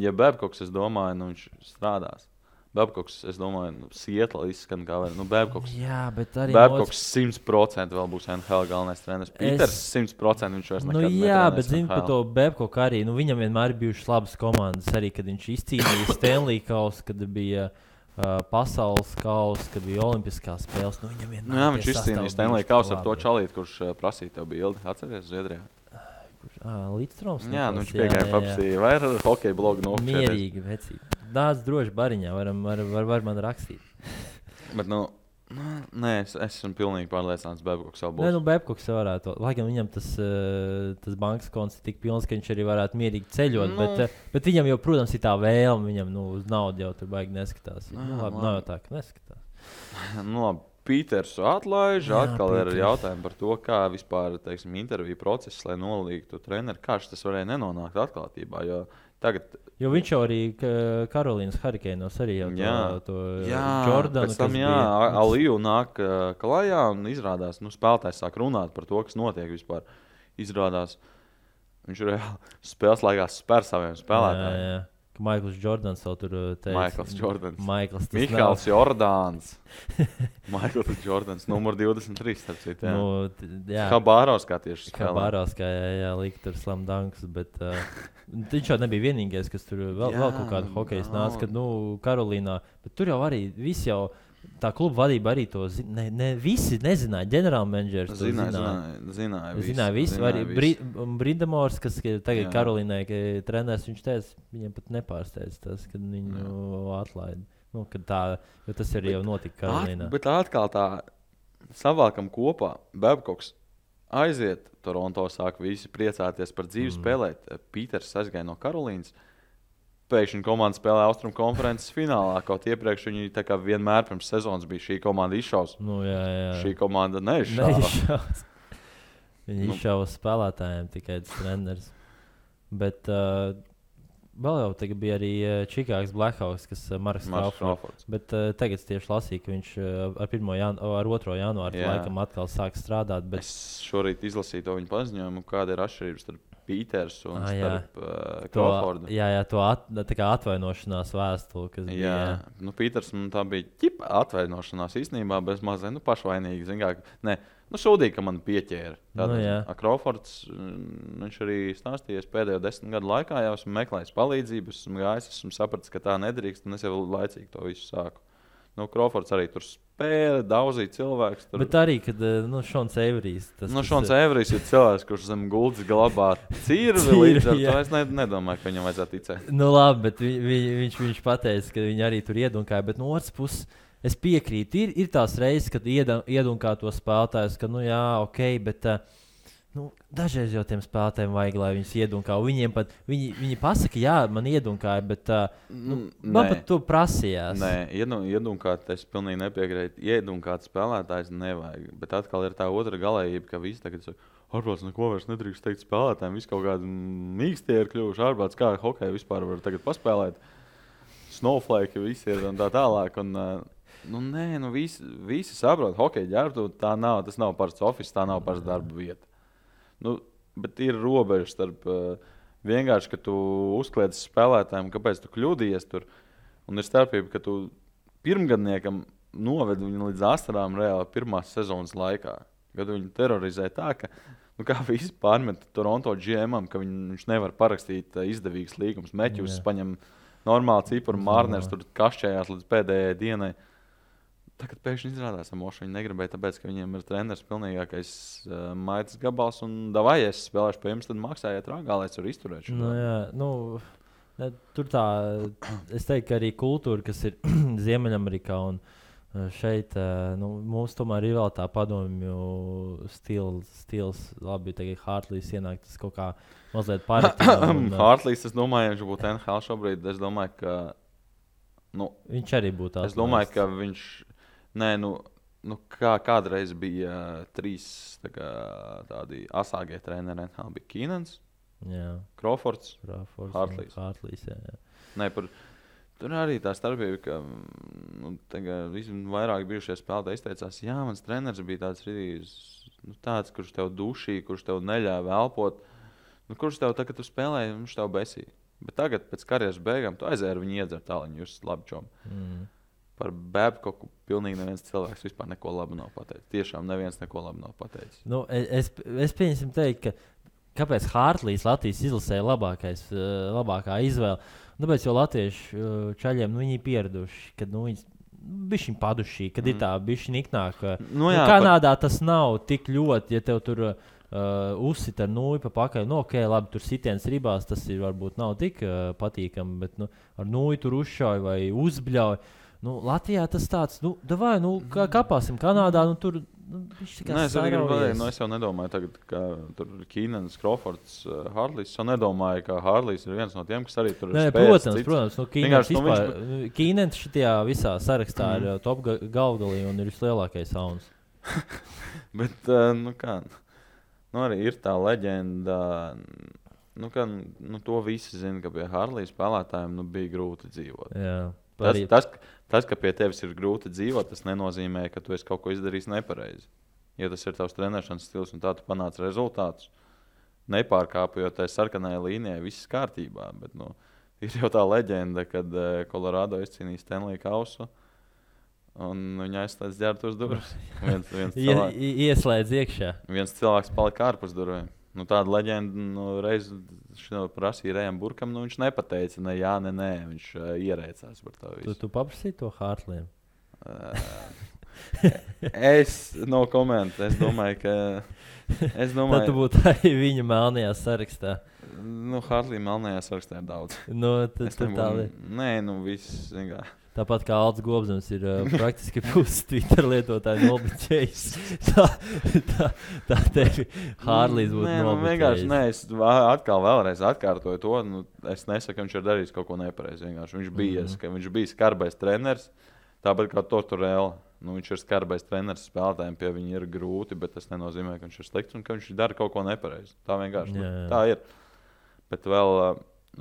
ja Babkoks, es domāju, viņš strādās. Babkoks, es domāju, Sietla izskan kā var. Babkoks, jā, bet arī Babkoks 100% vēl būs NHL galvenais treneris. Pīters 100% viņš vairs nekad netrenēs. Jā, bet zinu par to Babkoku arī. Viņam vienmēr ir bijušas labas komandas. Arī, kad viņš izcīnīja Stanley kausu, kad bija pasaules kausa, kad bija olimpiskās spēles. Viņam vienmēr viņš izcīnīja Stanley kausu ar to čalīti, kurš prasīja tev bildi. Atceries Zviedrijā? Līdzstroms. Jā, viņš piegāja paprasīja. Vai ar hokeja blogu nokšķēties? Mierīgi, vecīgi. Nāc droši bariņā, var man rakstīt. Bet, Nē, es esmu pilnīgi pārliecināts, Babkoks vēl būs. Nē, Babkoks varētu. Lai gan viņam tas bankas konts ir tik pilns, ka viņš arī varētu mierīgi ceļot, bet viņam jau, protams, ir tā vēlme, viņam uz naudu jau tur baigi neskatās. Labi, nav jau tā, ka neskatās. Labi. Pītersu atlaiž, atkal ir jautājumi par to, kā vispār, teiksim, interviju process, lai nolīgtu treneri, kā tas varēja nenonākt atklātībā, jo viņš jau arī Karolīnas Hurricanes arī jau to Jordanu. Pēc tam, Aliju nāk klajā un izrādās, spēlētājs sāk runāt par to, kas notiek vispār. Izrādās, viņš reāli spēles laikā spēr saviem spēlētājiem. Jā. Maikls Jordans jau tur teica. Mihāls Jordāns. Maikls Jordans, numur 23, starp citu. Habārovskā tieši spēlē. Habārovskā, lika tur slam dunks, bet viņš jau nebija vienīgais, kas tur vēl kaut kādu hokeju nāca, kad, Karolīnā, bet tur jau arī viss jau, tā kluba vadība arī to visi nezināja, ģenerālmenedžers to zināja visi. Arī Brindamors, kas tagad Karolīnai treneris, viņš teica, viņiem pat nepārsteidz tas, kad viņu atlaida. Jo tas arī jau notika Karolīnā. Bet atkal tā savākam kopā, Babkoks aiziet, Toronto sāk visi priecāties par dzīvi spēlēt. Pīters aizgāja no Karolīnas. Pēkšņi komanda spēlē Austrumu konferences finālā, kaut iepriekš viņi tā kā vienmēr pirms sezonas bija šī komanda izšaus. Šī komanda neizšaus. Viņi izšaus spēlētājiem tikai treneris. Bet vēl jau tagad bija arī Čikāgas Blackhawks, kas Marks Crawfords. Bet tagad tieši lasīju, ka viņš ar 2. janvāru laikam atkal sāk strādāt. Bet... Es šorīt izlasīju to viņa paziņojumu, kāda ir atšķirības starp Pīters un starp Crawfordu. Tā kā atvainošanās vēstule, kas bija. Pīters, tā bija atvainošanās īstenībā, bez mazliet pašvainīgi. Sūdīgi, ka man pieķēra. Crawfords, viņš arī stāstījies pēdējo 10 gadu laikā, jau esmu meklējis palīdzību, esmu gājis, esmu sapratis, ka tā nedrīkst, un es jau laicīgi to visu sāku. Crawfords arī tur spēle, daudzīja cilvēks. Tur... Bet arī, kad Šons Eiverijs... Šons Eiverijs ir cilvēks, kurš zem gultas glabā cirvi līdz ar to. Es nedomāju, ka viņam vajadzētu ticēt. Labi, bet viņš pateica, ka viņi arī tur iedunkāja, bet no otras puses es piekrītu. Ir tās reizes, kad iedunkā to spēlētājus, ka ok, bet... dažreiz jau tiem spēlētājiem vajag, lai viņus iedunkā. Viņiem pat, viņi pasaka, man iedunkāja, bet man pat to prasījās. Nē, iedunkāt, es pilnīgi nepiekrītu. Iedunkāt spēlētājs nevajag. Bet atkal ir tā otra galējība, ka visi tagad saka, ārprāts neko vairs nedrīkst teikt spēlētājiem. Visi kaut kādi mīkstie ir kļuvuši. Ārprāts kā hokeju vispār var tagad paspēlēt. Snowflake visi ir un tā tālāk. Un, visi saprot, hokeja ģērbtu, tas nav parasts office, tā nav parasts darba vieta. Bet ir robeža starp vienkārši, ka tu uzkliedzi spēlētājiem, kāpēc tu kļūdījies tur. Un ir starpība, ka tu pirmgadniekam novedi viņu līdz astarām reāli pirmās sezonas laikā. Kad viņu terorizē tā, ka kā visi pārmet Toronto GM-am, ka viņš nevar parakstīt izdevīgas līgumus. Meķus paņem normāli cipuru, Mārners tur kašķējās līdz pēdējai dienai. Tagad pēkšņi izrādās, ka viņi negribēja, tāpēc, ka viņiem ir treneris pilnīgākais maitas gabals. Un davai, ja es spēlēšu pie jums, tad maksājiet rāgā, lai es varu izturēt šo. Tur tā, es teiktu, ka arī kultūra, kas ir Ziemeļamerikā un šeit, mums tomēr ir vēl tā padomju stils. Labi, tagad Hartlīs ienāk, tas kaut kā mazliet pārētā. Hartlīs, es domāju, viņš būtu NHL šobrīd. Es domāju, ka... viņš arī būtu tāds. Es domāju, ka viņš... kādreiz bija 3 tādi asāgie treneri. Bija Kīnens, Crawfords, Hartlīs. Tur arī tā starpība, ka vairāk bijušie spēlētāji izteicās, mans treneris bija tāds, kurš tev dušīja, kurš tev neļāva elpot, kurš tev tā, kad tu spēlēji, viņš tev besīja. Bet tagad, pēc karjeras beigām, tu aizēji ar viņu iedzert tāliņu, jūs labi čomi. Par Babkoku pilnīgi neviens cilvēks vispār neko labu nav pateicis. Tiešām neviens neko labu nav pateicis. Es pieņemsim teikt, kāpēc Hartlīs Latvijas izlasēja labākā izvēle. Tāpēc, jo latviešu čaļiem viņi pieraduši, kad viņi bišķiņ padušī, kad ir tā bišķiņ iknāk. Kanādā tas nav tik ļoti, ja tev tur uzsit ar nūju pa pakaļ. Labi, tur sitiens ribās, tas ir varbūt nav tik patīkami, bet ar nūju tur uzšauj vai uzbļauj. Latvijā tas tāds, davai, kāpāsim Kanādā, tur. Es jau nedomāju, tagad, ka tur ir Kīnens, Crawfords, Harlīs. Es jau nedomāju, ka Harlīs ir viens no tiem, kas arī tur ir spēcīgs. Protams, Kīnens šitajā visā sarakstā ir top galvgalī un ir vislielākais sauns. Bet, arī ir tā leģenda, to visi zina, ka pie Harlīs spēlētājiem bija grūti dzīvot. Jā. Tas, ka pie tevis ir grūti dzīvot, tas nenozīmē, ka tu esi kaut ko izdarījis nepareizi. Ja tas ir tavs trenēšanas stils un tā tu panāc rezultātus, nepārkāpjot tai sarkanai līnijai, viss kārtībā. Bet, ir jau tā leģenda, kad Colorado izcīnīja Stanley kausu un viņa aizslēdz ģērbtuves durvis. Ieslēdz iekšā. Viens cilvēks palika ārpus durvīm. Tāda leģenda reiz prasīja Rejam Burkam, viņš nepateica ne jā, ne nē. Viņš ierēcās par to visu. Tu paprasīji to Hartliem? Es no komentu. Es domāju, ka... Tad tu būtu arī viņa melnajā sarakstā. Hartlī melnajā sarakstā ir daudz. Nē, viss vienkārši. Tāpat kā Alts Gobzams ir praktiski puses Twitter lietotāji nobliķējis. Tā tevi Harlīs būtu nobliķējis. Es vēlreiz atkārtoju to. Es nesaku, ka viņš ir darījis kaut ko nepareizi. Viņš bija skarbais treneris, tāpat kā Tortorella. Viņš ir skarbais treneris spēlētājiem, pie viņa ir grūti, bet tas nenozīmē, ka viņš ir slikts un ka viņš dara kaut ko nepareizi. Tā vienkārši tā ir. Bet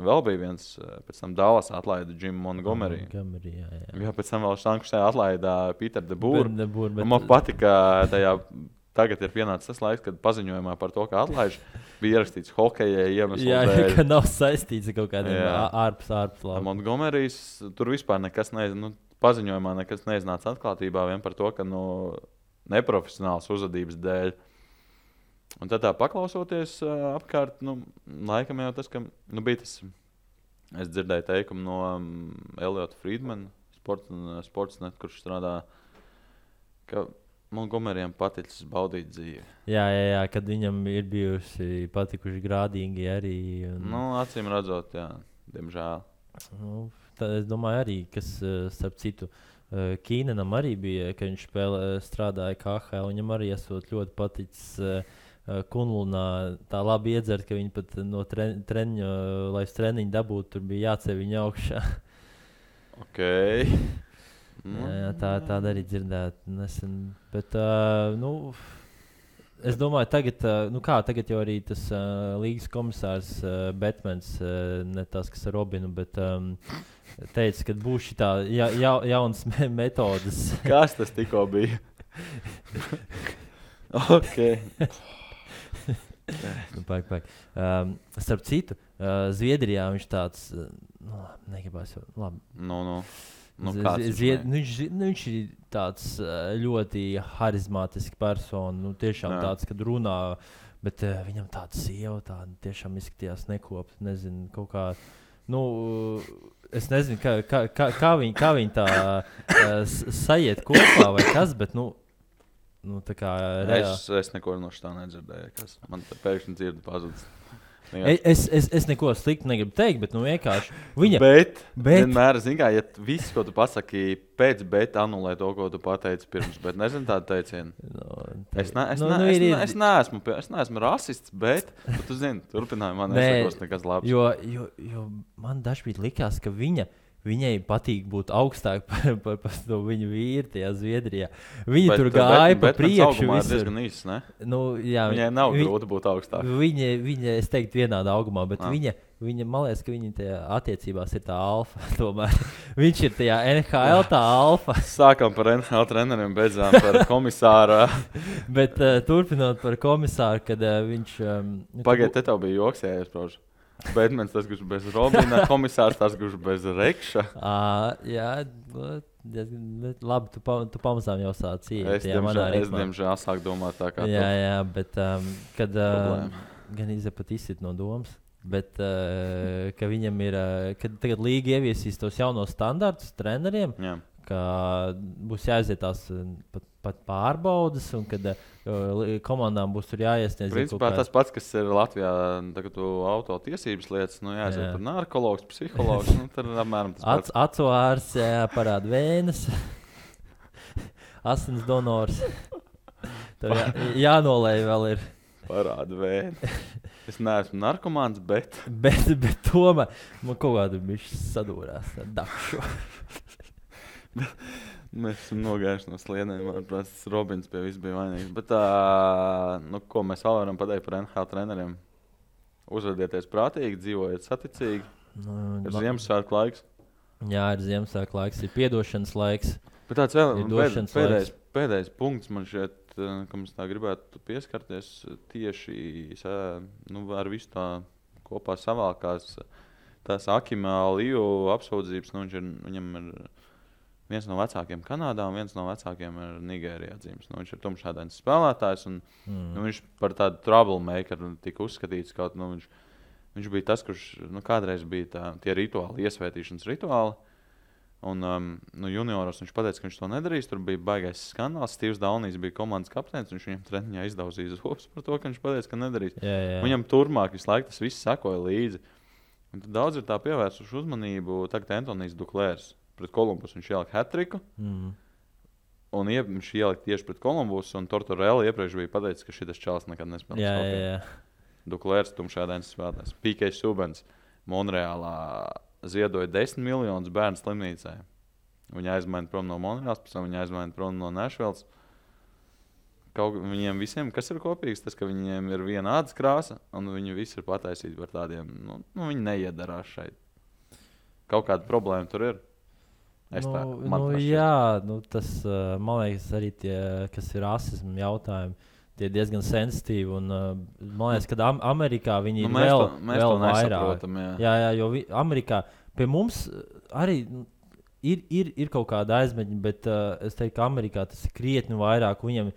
vēl bija viens, pēc tam Dallas atlaida Jimu Montgomery. Jā, pēc tam vēl Šankusē atlaida Peter DeBoer. Man patika, tagad ir pienācis tas laiks, kad paziņojumā par to, ka atlaiž, bija ierakstīts hokeja iemeslu dēļ. Jā, ka nav saistīts ar kaut kādiem ārpus labi. Montgomerys tur vispār nekas paziņojumā nekas neiznāca atklātībā vien par to, ka neprofesionāls uzvedības dēļ. Un tad tā paklausoties apkārt, laikam jau tas, ka bija tas, es dzirdēju teikumu no Eliota Friedmana, Sportsnet, kurš strādā, ka Montgomeryam paticis baudīt dzīvi. Jā, kad viņam ir bijusi patikuši grādīgi arī. Acīm redzot, jā, diemžēl. Es domāju arī, kas, starp citu, Kīnenam arī bija, ka viņš strādāja KHL, viņam arī esot ļoti paticis Kunlunā tā labi iedzert, ka viņi pat no treniņa, lai uz treniņu dabūtu, tur bija jāceļ viņa augšā. Ok. Jā, tāda arī dzirdēt nesen. Bet, es domāju, tagad jau arī tas līgas komisārs Batmans, ne tas, kas ar Robinu, bet teica, ka būs šitā jaunas metodas. Kas tas tikko bija? Ok. Paik. Starp citu, Zviedrijā viņš tāds, negribās jau, labi. Viņš ir tāds ļoti harizmātisks persona, tiešām tāds, kad runā, bet viņam tāda sieva, tāda tiešām izskatījās nekopta, nezinu, kaut kā, es nezinu, kā viņi tā sajiet kopā vai kas, bet, tā kā es neko no šitā nedzirdēju, kas man pēkšņi dzirdi pazudis. Es neko sliktu negribu teikt, bet vienkārši viņa... Bet vienmēr, ja viss, ko tu pasaki pēc, bet anulē to, ko tu pateici pirms, bet nezinu tādu teicienu. Es neesmu rasists, bet tu zini, turpinājumā nesakos nekas labs. Jo man dažkārt likās, ka viņai patīk būt augstāk par to viņu vīru tajā Zviedrijā. Viņa tur gāja pa priekšu. Bet diezgan īsts, ne? Viņai nav grūti būt augstāk. Viņa, es teiktu, vienādā augumā, bet viņa, man liekas, ka viņa tajā attiecībās ir tā alfa tomēr. Viņš ir tajā NHL tā alfa. Sākam par NHL treneriem, beidzām par komisāru. Bet turpinot par komisāru, kad viņš... Pagaid, te tev bija joks, ja iespraužu. Batmans tas, kurš bez Robina, komisārs tas, kurš bez Rekša. Jā, labi, tu pamazām jau sāc iet. Es diemžēl sāku domāt tā kā Jā, bet kad gan pat izsit no domas, bet ka viņam ir, kad tagad līga ieviesīs tos jaunos standartus treneriem, ka būs jāiziet tās pat pārbaudas, un kad komandām būs tur jāiesniedz. Principā tas pats, kas ir Latvijā, tagad auto tiesības lietas, jāiziet tur narkologs, psihologs, tad apmēram tas pats. Acu ārsts, parāda vēnes, asins donors. Tur jānolēj vēl ir. Parāda vēnes. Es neesmu narkomāns, bet tomēr man kaut kādu bišķi sadūrās. Dakšu. Mēs esam nogājuši no sliedēm. Manuprāt, Robins pie viss bija vainīgs. Bet, ko mēs vēl varam pateikt par NHL treneriem? Uzvedieties prātīgi, dzīvojiet saticīgi. Ir Ziemassvētku laiks. Jā, ir Ziemassvētku laiks, ir piedošanas laiks. Bet tāds vēl pēdējais punkts man šeit, ka mums tā gribētu pieskarties tieši ar visu tā kopā savākās tās Akima Aliju apsūdzības. Viņam ir viens no vecākiem Kanādā un viens no vecākiem ir Nigērijā dzimis. Viņš ir tumšādains spēlētājs un viņš par tādu troublemakeru tika uzskatīts. Kaut, viņš bija tas, kurš kādreiz bija tie rituāli, iesvētīšanas rituāli. Un junioros viņš pateica, ka viņš to nedarīs. Tur bija baigais skandāls. Stīvs Daunijs bija komandas kapteinis. Viņš viņam treniņā izdauzīja zobus par to, ka viņš pateica, ka nedarīs. Jā. Viņam turpmāk visu laiku tas viss sekoja līdzi. Un tad daudz ir tā pievērsuši uzmanību. Tagad Antonijs Duklērs pret Kolumbusu viņš ielika hat-triku. Un viņš ielika tieši pret Kolumbusu. Un Tortorella iepriekš bija pateicis, ka šitas čalis nekad nespēlēs. Jā. Duklērs tumšādainis spēlētājs. P.K. Subans Monreālā ziedoja 10 miljonus bērnu slimnīcai. Viņa aizmaina prom no Monreāls, pēc tam viņa aizmaina prom no Nashvilles. Viņiem visiem, kas ir kopīgs, tas, ka viņiem ir viena ādas krāsa, un viņi visi ir pataisīti par tādiem, viņi neiedarās šeit. Kaut kāda problēma tur ir. Tas, man liekas, arī tie, kas ir rasismu jautājumi, tie diezgan sensitīvi. Un, man liekas, ka Amerikā viņi ir vēl vairāk. Jā, jo Amerikā pie mums arī ir kaut kāda aizmeņa, bet es teiktu, ka Amerikā tas ir krietni vairāk. Viņam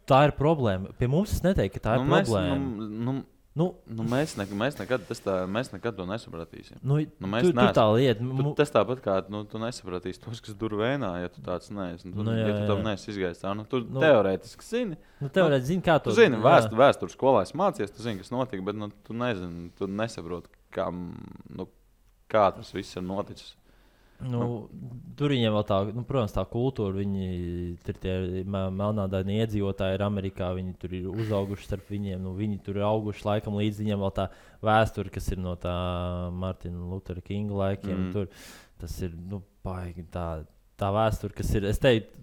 tā ir problēma. Pie mums es neteiktu, ka tā ir problēma. Mēs nekad to nesapratīsim. Tur tā lieta. Tas tāpat kā tu nesapratīsi tos, kas dur vēnā, ja tu tāds neesi. Ja tu tam neesi izgājis tā, tu teorētiski zini. Teorētiski zini, kā to. Tu zini, vēstures skolā esi mācies, tu zini, kas notika, bet tu nezini, tu nesaproti, kā tas viss ir noticis. Tur viņiem vēl tā, protams, tā kultūra, viņi ir tie melnādaini iedzīvotāji ir Amerikā, viņi tur ir uzauguši starp viņiem, viņi tur ir auguši laikam līdz viņiem vēl tā vēsture, kas ir no tā Martina Luthera Kinga laikiem. Tur, tas ir, baigi tā vēsture, kas ir, es teiktu,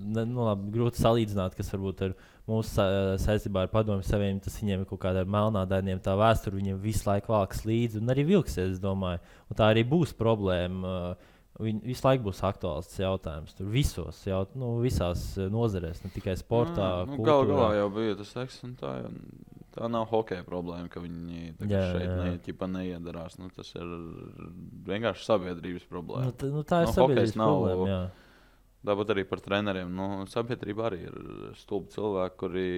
grūti salīdzināt, kas varbūt ar mūsu saistībā ar Padomju Savienību, tas viņiem ir kaut kādā ar melnādainiem, tā vēsture viņiem visu laiku valkas līdzi un arī vilksies, es domāju. Un tā arī būs problēma. Visu laiku būs aktuāls jautājums. Tur visās nozarēs, ne tikai sportā, kultūrā. Galā jau bija tas seks, un tā nav hokeja problēma, ka viņi šeit neiedarās. Tas ir vienkārši sabiedrības problēma. Tā ir sabiedrības problēma, jā. Tāpat arī par treneriem. Sabiedrība arī ir stulbi cilvēki, kuri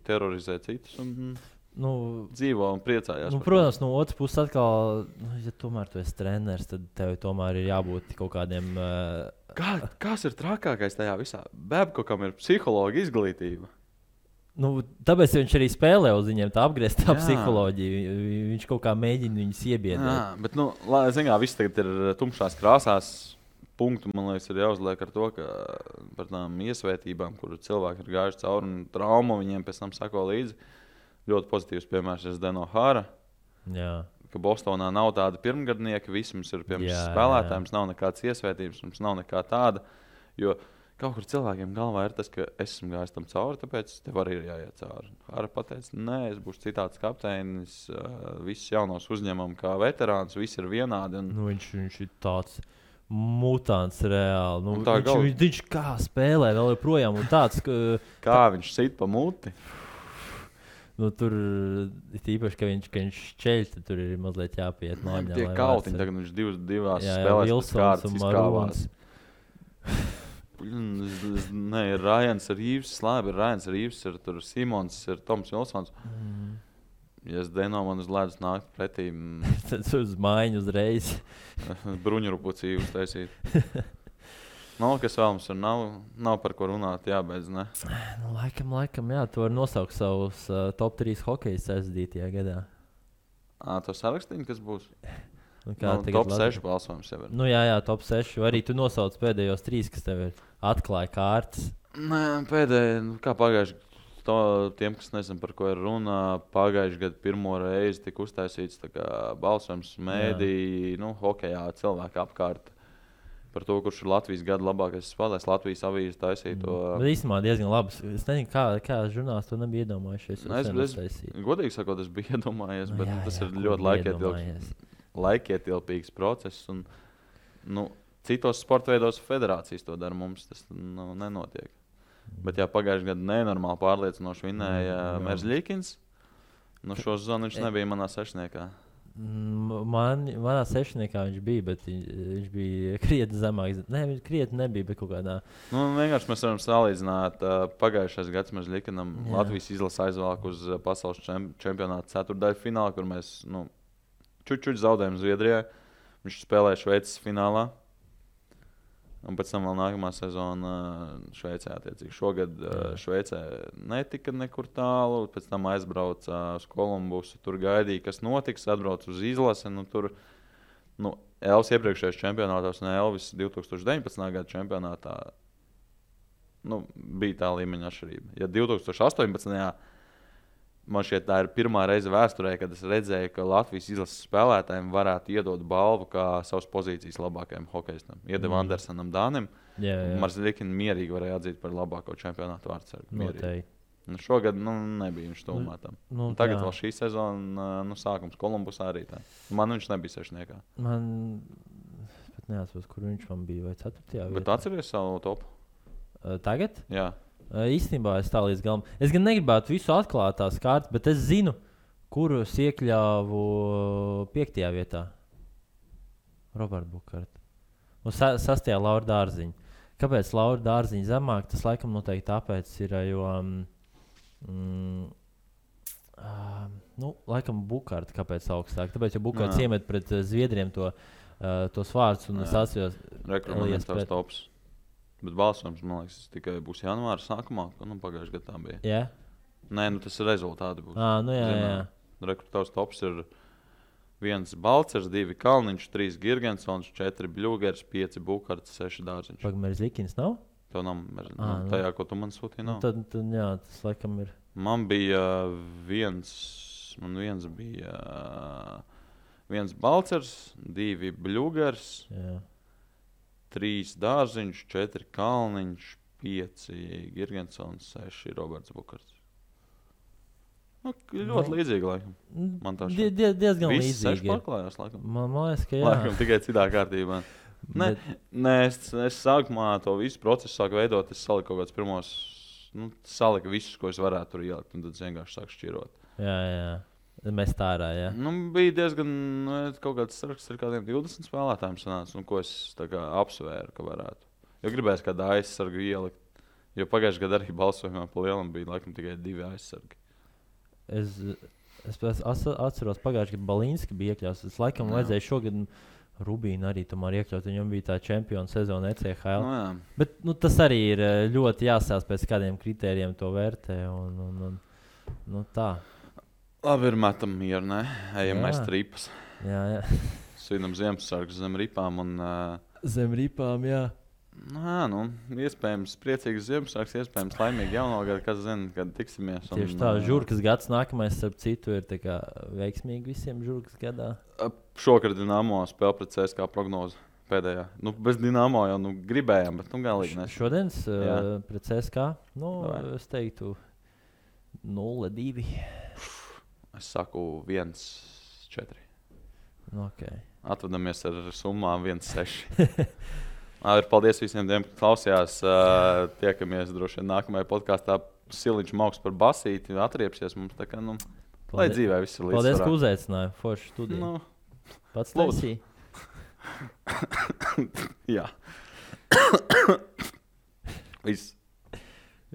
terorizē citus un dzīvo un priecājās. Protams, no otras puses atkal, ja tomēr tu esi treneris, tad tev tomēr ir jābūt kaut kādiem... Kas ir trakākais tajā visā? Babkokam ir psihologa izglītība. Tāpēc viņš arī spēlē uz viņiem tā apgrieztā psiholoģija. Viņš kaut kā mēģina viņus iebiedēt. Jā, bet, viss tagad ir tumšās krāsās. Punktu, man liekas, ir jāuzliek ar to, ka par tām iesvētībām, kur cilvēki ir gājuši cauri un traumu, viņiem pēc tam sako līdzi. Ļoti pozitīvs piemērs ir Zdeno Hara. Jā. Ka Bostonā nav tāda pirmgadnieka, visi mums ir spēlētāji, mums nav nekādas iesvētības, mums nav nekā tāda. Jo kaut kur cilvēkiem galvā ir tas, ka es esmu gājis tam cauri, tāpēc tev arī ir jāiet cauri. Hara pateica, nē, es būšu citāds kapteinis, visus jaunos uzņemam kā veterāns, visi ir vienādi. Viņš ir tāds mutants reāli. Viņš kā spēlē vēl joprojām un tāds, kā viņš sit pa muti. Tur ir īpaši, ka viņš ceļ, tad tur ir mazliet jāpiet mājā. Tie kautiņi, tagad viņš divās spēlēs kādas izkāvās. Nē, ir Rajans ar Īvs, labi, ir Rajans ar Īvs, ir tur Simons, ir Toms Vilsons. Ja es Deno man uz ledus nākt pretī... tad uz mājiņu uzreiz. Bruņurupucī uztaisīt. Kas vēl mums ir? Nav par ko runāt, jābeidz, ne? Nu, laikam, jā, tu vari nosaukt savus top 3 hokejus aizdītajā gadā. To sarakstīni, kas būs? Top 6 balsojums jau ir. Jā, top 6. Arī tu nosauc pēdējos 3, kas tev ir atklāja kārtas. Nē, pēdējie, kā pagājuši, tiem, kas nezinu, par ko ir runa, pagājuši gadu pirmo reizi tika uztaisīts balsojums mēdī, hokejā cilvēki apkārt. Par to, kurš ir Latvijas gada labākais spēlētājs. Latvijas avīze taisīja to. Bet īstenībā diezgan labi. Es nezinu, kā žurnālisti to nebija iedomājušies. Godīgi sakot, es biju iedomājies, bet tas ir ļoti laikietilpīgs process. Un, citos sporta veidos federācijas to dara, mums tas nenotiek. Bet pagājušajā gadā nenormāli pārliecinoši vinēja Merzļikins. Šo sezonu viņš nebija manā sešniekā. Manā sešniekā viņš bija, bet viņš bija krietni zemāks. Nē, viņš krietni nebija, bet kaut kādā. Vienkārši mēs varam salīdzināt. Pagājušais gads mēs Likanam Latvijas izlasi aizvāk uz pasaules čempionāta ceturtdaļu finālu, kur mēs čučuļ zaudējām Zviedrijai. Viņš spēlēja Šveices finālā. Un pēc tam vēl nākamā sezona Šveicē. Šogad Šveicē netika nekur tālu. Pēc tam aizbrauca uz Kolumbusu. Tur gaidīja, kas notiks. Atbrauca uz izlasi. Elvis iepriekšējais čempionātos un Elvis 2019. Gada čempionātā bija tā līmeņa atšķirība. Ja 2018. Man šķiet, tā ir pirmā reize vēsturē, kad es redzēju, ka Latvijas izlases spēlētājiem varētu iedot balvu kā savas pozīcijas labākajam hokejistam. Iedeva Andersenam Dānim. Merzļikins mierīgi varēja atzīt par labāko čempionātu vārdsargu. Šogad nebija viņš tūmā tam. Tagad vēl šī sezona sākums Kolumbusā arī tā. Man viņš nebija sešniekā. Man pat neatceros, kur viņš man bija, vai 4. vietā. Bet tu atceries savu topu? Tagad? Jā. Īstenībā es tā līdz galam. Es gan negribētu visu atklāt tās kārtas, bet es zinu, kurus iekļāvu 5. vietā. Roberta Bukārta. Un 6. Laura Dārziņa. Kāpēc Laura Dārziņa zemāk? Tas laikam noteikti tāpēc ir, jo laikam Bukārta kāpēc augstāk. Tāpēc, jo Bukārts iemet pret Zviedriem tos vārdus un es atceros. Rekrutējums tās tops. Bet balsojums, man liekas, tikai būs janvāra sākumā, pagājušajā gadā tā bija. Jā? Nē, tas ir rezultāti būs. Jā. Rekrutējums tops ir 1 Balcers, 2 Kalniņš, 3 Girgensons, 4 Bļūgers, 5 Bukārts, 6 Dārziņš. Merzļikins nav? Tev nav Merzļikins. Tajā, ko tu man sūtīji, nav. Tad jā, tas laikam ir. Man bija viens bija 1 Balcers, 2 Bļūgers. Jā. 3 Dārziņš, 4 Kalniņš, 5 Girgensons, 6 Roberts Bukārts. Ļoti līdzīgi, laikam. Man tā šķiet. Diezgan līdzīgi. Visi 6 pārklājās, laikam. Man liekas, ka jā. Laikam tikai citā kārtībā. Nē, es sākumā to visu procesu sāku veidot. Es saliku kaut kāds pirmos, saliku visus, ko es varētu tur ielikt, un tad es vienkārši sāku šķirot. Jā. Mēs tā ārā, jā. Bija diezgan kaut kāds saraksts ar kādiem 20 spēlētājiem sanāca, ko es apsvēru, ka varētu. Jo gribēju kādu aizsargu ielikt, jo pagājušajā gadā arī balsojumā pa lielam bija laikam tikai 2 aizsargi. Es atceros pagājušajā gadā Balīnski bija iekļauts. Es laikam vajadzēja šogad Rubīnu arī tomēr iekļaut, viņam bija tā čempiona sezona ECHL. Bet tas arī ir ļoti jāsās pēc kādiem kritērijiem to vērtē un tā. Labi, ir metam mieru, ne? Ejam mēs tripas. Jā. Svinam Ziemassvētkus zem ripām un... Zem ripām, jā. Iespējams priecīgs Ziemassvētkus, iespējams laimīgi jauno gadu, kas zina, kad tiksimies. Tieši tā, Žurkas gads nākamais, starp citu, ir tā kā veiksmīgi visiem Žurkas gadā. Šokar Dinamo spēle pret CSKA prognozi pēdējā. Bez Dinamo jau gribējām, bet galīgi nes. Šodienas pret CSKA, es teiktu 0-2. Es saku 1-4. Okay. Atvadamies ar summām 1-6. Paldies visiem, kas klausījās. Tiekamies droši vien nākamajā podkāstā. Siliņš Mauks par basīti atriepsies mums. Tā kā, lai dzīvē viss ir līdzsvarā. Paldies, ka uzaicināji. Forši studiju. Pats taisīji. Jā. Viss.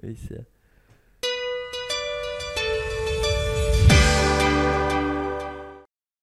Viss, jā.